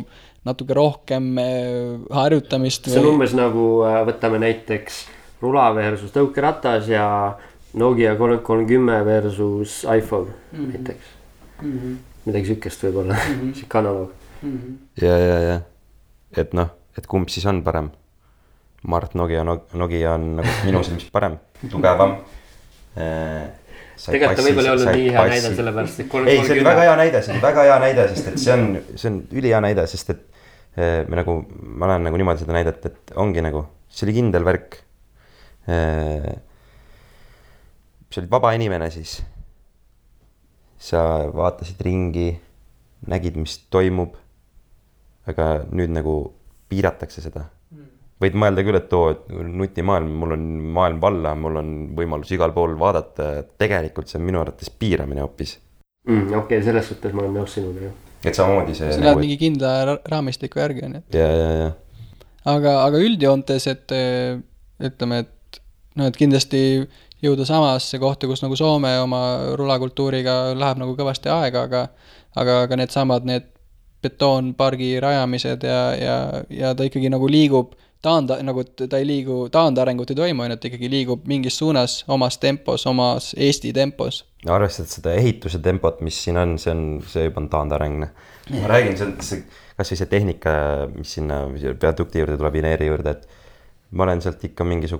natuke rohkem harjutamist. See on umbes nagu võtame näiteks rula versus tõukeratas ja Nokia 330 versus iPhone näiteks. Midagi sükest võib olla, siuke analoog. Ja. Et kumb siis on parem? Mart Nokia on nagu minu silmis parem, tugevam. tegelikult ta võib-olla ei olnud nii hea näide sellepärast, et ei, see oli väga hea näide, sest et see on ülihea näide, sest et ma olen nagu niimoodi seda näidet, et ongi nagu, see oli kindel värk. See olid vaba inimene siis. Sa vaatasid ringi, nägid, mis toimub, aga nüüd nagu piiratakse seda. Võid mõelda küll, et nutimaailm, mul on maailm valla, mul on võimalus igal pool vaadata, tegelikult see on minu arvates piiramine hoopis. Okei, selles suhtes ma olen nõus sinuga. Et samamoodi see... See läheb mingi kindla raamistiku järgi on. Ja. Aga üldjoontes, et ütleme, et kindlasti jõuda samasse kohta, kus nagu Soome oma rulakultuuriga läheb nagu kõvasti aega, aga need samad, need betoonpargi rajamised ja ta ikkagi nagu liigub nagu ta ei liigu, taandarengut ei toimu, et ikkagi liigub mingis suunas omas tempos, omas Eesti tempos. Arvestad seda ehituse tempot, mis siin on, see juba on taandareng. Ma räägin, kas või see tehnika, mis sinna peadukti juurde tuleb, Ineeri juurde, et ma olen sealt ikka mingi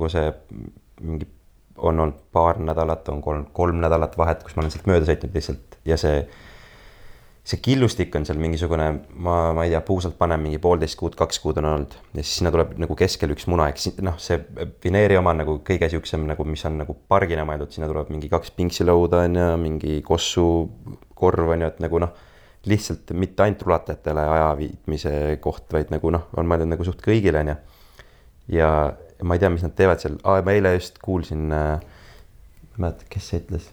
on olnud paar nädalat, on kolm nädalat vahet, kus ma olen sealt mööda sõitnud lihtsalt ja see killustik on seal mingisugune, ma ei tea, puusalt panen mingi 1,5 kuud, 2 kuud on olnud ja siis sinna tuleb nagu keskel üks muna, see Vineeri oma nagu kõige siuksem, nagu, mis on nagu pargina mõeldud, sinna tuleb mingi 2 pinksilõuda on ja mingi kossu korv on ju, et nagu lihtsalt mitte ainult rulatajatele aja viitmise koht, vaid nagu on mõeldud nagu suht kõigile on ja ma ei tea, mis nad teevad seal, ma eile just kuulsin, kes see ütles?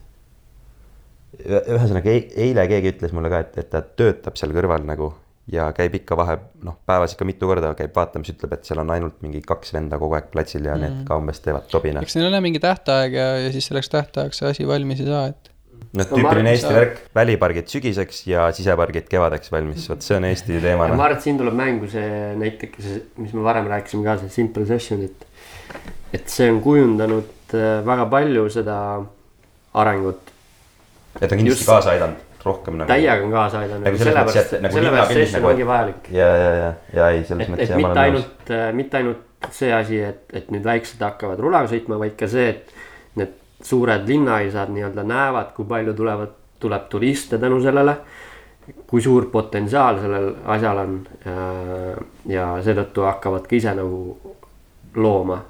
Ühesõnaga, eile keegi ütles mulle ka, et ta töötab seal kõrval nagu ja käib ikka päevas ikka mitu korda käib vaatamas, ütleb, et seal on ainult mingi 2 venda kogu aeg platsil ja need ka umbes teevad tobina. Eks neil on mingi tähtaeg ja siis selleks tähtajaks see asi valmis ei saa, et... Tüüpiline Eesti värk, välipargid sügiseks ja sisepargid kevadeks valmis, võt see on Eesti teema. Ma arvan, et siin tuleb mängu see näiteks, mis me varem rääkisime ka, see Simple Session, et see on kujundanud väga palju seda arengut. Et on kindlasti kaasa aidanud rohkem nagu... Täiega on kaasa aidanud, sellepärast session ongi vajalik. Ja ei, selles mõttes ja ma olen nõus. Mitte ainult see asi, et nüüd väiksed hakkavad rulaga sõitma, vaid ka see, et need suured linnaisad nii-öelda näevad, kui palju tuleb turiste tänu sellele, kui suur potentsiaal sellel asjal on ja seetõttu hakkavad ka ise nagu looma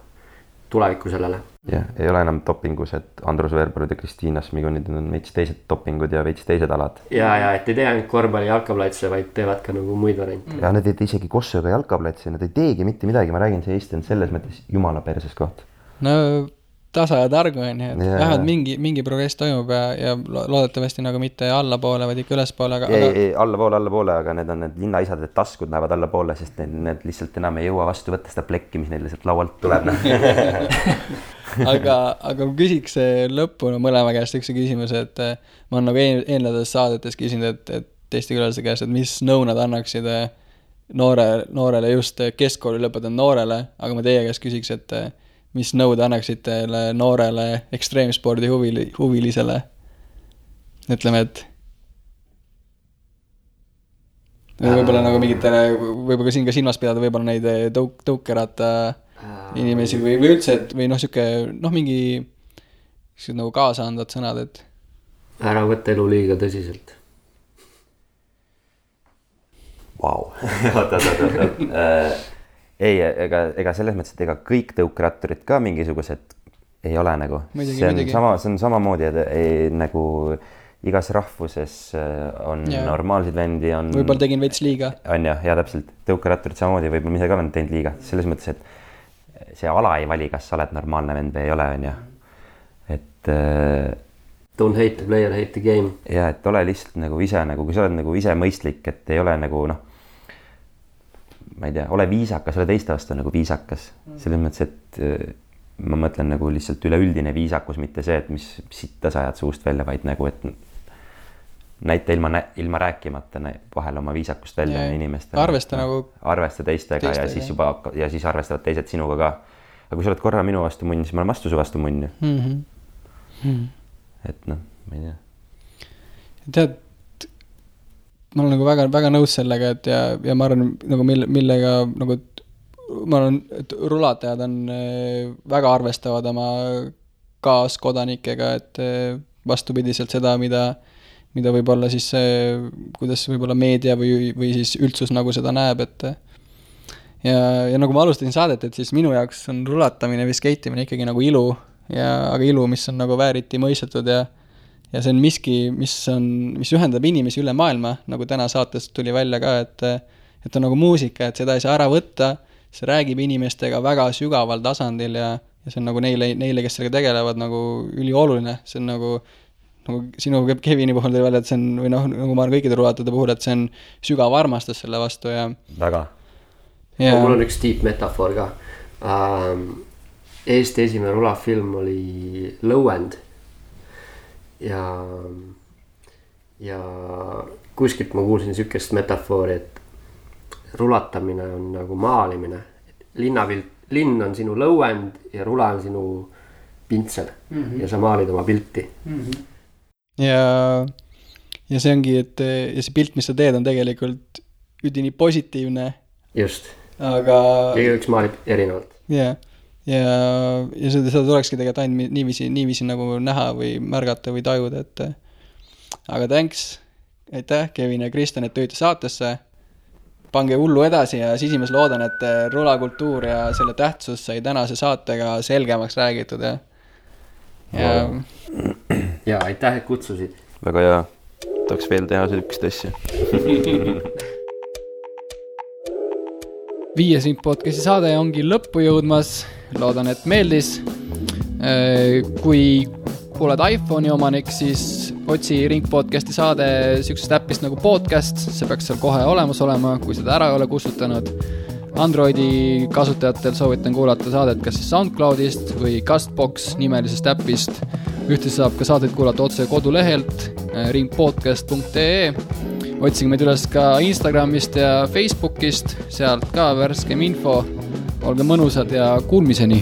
tulevikku sellele. Ja, ei ole enam dopingus, et Andrus Veerparid ja Kristiina Smigonid on veits teised dopingud ja veits teised alad. Ja, et ei tee ainult korvpalli jalkaplatse, vaid teevad ka nagu muid variante. Ja nad ei tee isegi kossuga jalkaplatse, nad ei teegi mitte midagi, ma räägin, see Eesti on selles mõttes jumala perses koht. No tasa ja targu on, et vähemalt mingi progress toimub ja loodetavasti nagu mitte allapoole, vaid ikka ülespoole. Ei, allapoole, aga need on need linnaisad, et taskud lähevad allapoole, sest need lihtsalt enam ei jõua vastu võtta seda plekki, mis neil lihtsalt laualt tuleb. aga küsiks lõppu mõlema käest üks küsimus, et ma olen nagu eelnedes saadetes küsinud, et teiste külalise käest, et mis nõu nad annaksid noorele just keskkooli lõpetanud noorele, aga ma teie käest küsiks, et mis nõud annaksid teile noorele ekstreemspordi huvilisele? Ütleme, et võib-olla nagu mingitele, võib-olla siin ka silmas pidada, võib-olla neid tõukerata inimesi või üldse, et või siuke, mingi nagu kaasa andvad sõnad, et ära võtta elu liiga tõsiselt. Vau. Ei, ega selles mõttes, et ega kõik tõukratturid ka mingisugused ei ole nagu. See on samamoodi, et nagu igas rahvuses on normaalseid vendi. Võib-olla tegin veits liiga. On ja täpselt. Tõukratturid samamoodi, võib-olla ise ka olen teinud liiga. Selles mõttes, et see ala ei vali, kas sa oled normaalne vend või ei ole, on ja. Et... Don't hate the player, hate the game. Ja, et ole lihtsalt nagu ise, nagu kui sa oled nagu ise mõistlik, et ei ole nagu ma ei tea, ole viisakas, ole teiste vastu nagu viisakas. Selles mõttes, et ma mõtlen nagu lihtsalt üleüldine viisakus, mitte see, et mis sitta sa ajad suust välja, vaid nagu, et näita ilma rääkimata vahel oma viisakust välja inimestele. Arvesta teistega ja siis arvestavad teised sinuga ka. Aga kui sa oled korra minu vastu munn, siis ma olen vastu su vastu munn. Et ma ei tea. Tead, ma olen nagu väga, väga nõus sellega, et ja ma arvan, nagu millega nagu, ma arvan, et rulatajad on väga arvestavad oma kaaskodanikega, et vastupidiselt seda, mida võib-olla siis kuidas võib-olla meedia või siis üldsus nagu seda näeb, et ja nagu ma alustasin saadet, et siis minu jaoks on rulatamine või skeitimine ikkagi nagu ilu, aga ilu, mis on nagu vääriti mõistetud ja see on miski, mis ühendab inimesi üle maailma, nagu täna saatest tuli välja ka, et on nagu muusika, et seda ei saa ära võtta, see räägib inimestega väga sügaval tasandil ja see on nagu neile, kes sellega tegelevad, nagu ülioluline, see on nagu sinu Kevini puhul tuli välja, et see on, või noh, nagu ma olen kõikide rulatajate puhul, et see on sügav armastus selle vastu ja väga. Mul on üks tiip metafoor ka. Eesti esimene rulafilm oli Lõuend ja kuskilt ma kuulsin sükest metafoori, et rulatamine on nagu maalimine. Linn on sinu lõuend ja rula on sinu pintsel ja sa maalid oma pilti. Ja see ongi, et ja see pilt, mis sa teed, on tegelikult üdini positiivne. Just. Aga üks maalib erinevalt. Ja seda tulekski tegelikult ainult niiviisi nagu näha või märgata või tajuda, et aga thanks, aitäh Kevin ja Kristjan, et tööte saatesse. Pange hullu edasi ja siis loodan, et rulakultuur ja selle tähtsus sai tänase saatega selgemaks räägitud ja aitäh, et kutsusid. Väga hea, tahaks veel teha sellist asja. 5 Ring podcasti saade ongi lõppu jõudmas, loodan, et meeldis. Kui oled iPhone'i omanik, siis otsi Ring podcasti saade sükest äppist nagu podcast, see peaks seal kohe olemas olema, kui seda ära ei ole kustutanud. Androidi kasutajatel soovitan kuulata saadet kas siis SoundCloudist või Castbox nimelisest äppist. Ühtlasi saab ka saadet kuulata otse kodulehelt ringpodcast.ee. Otsige meid üles ka Instagramist ja Facebookist, sealt ka värskem info. Olge mõnusad ja kuulmiseni!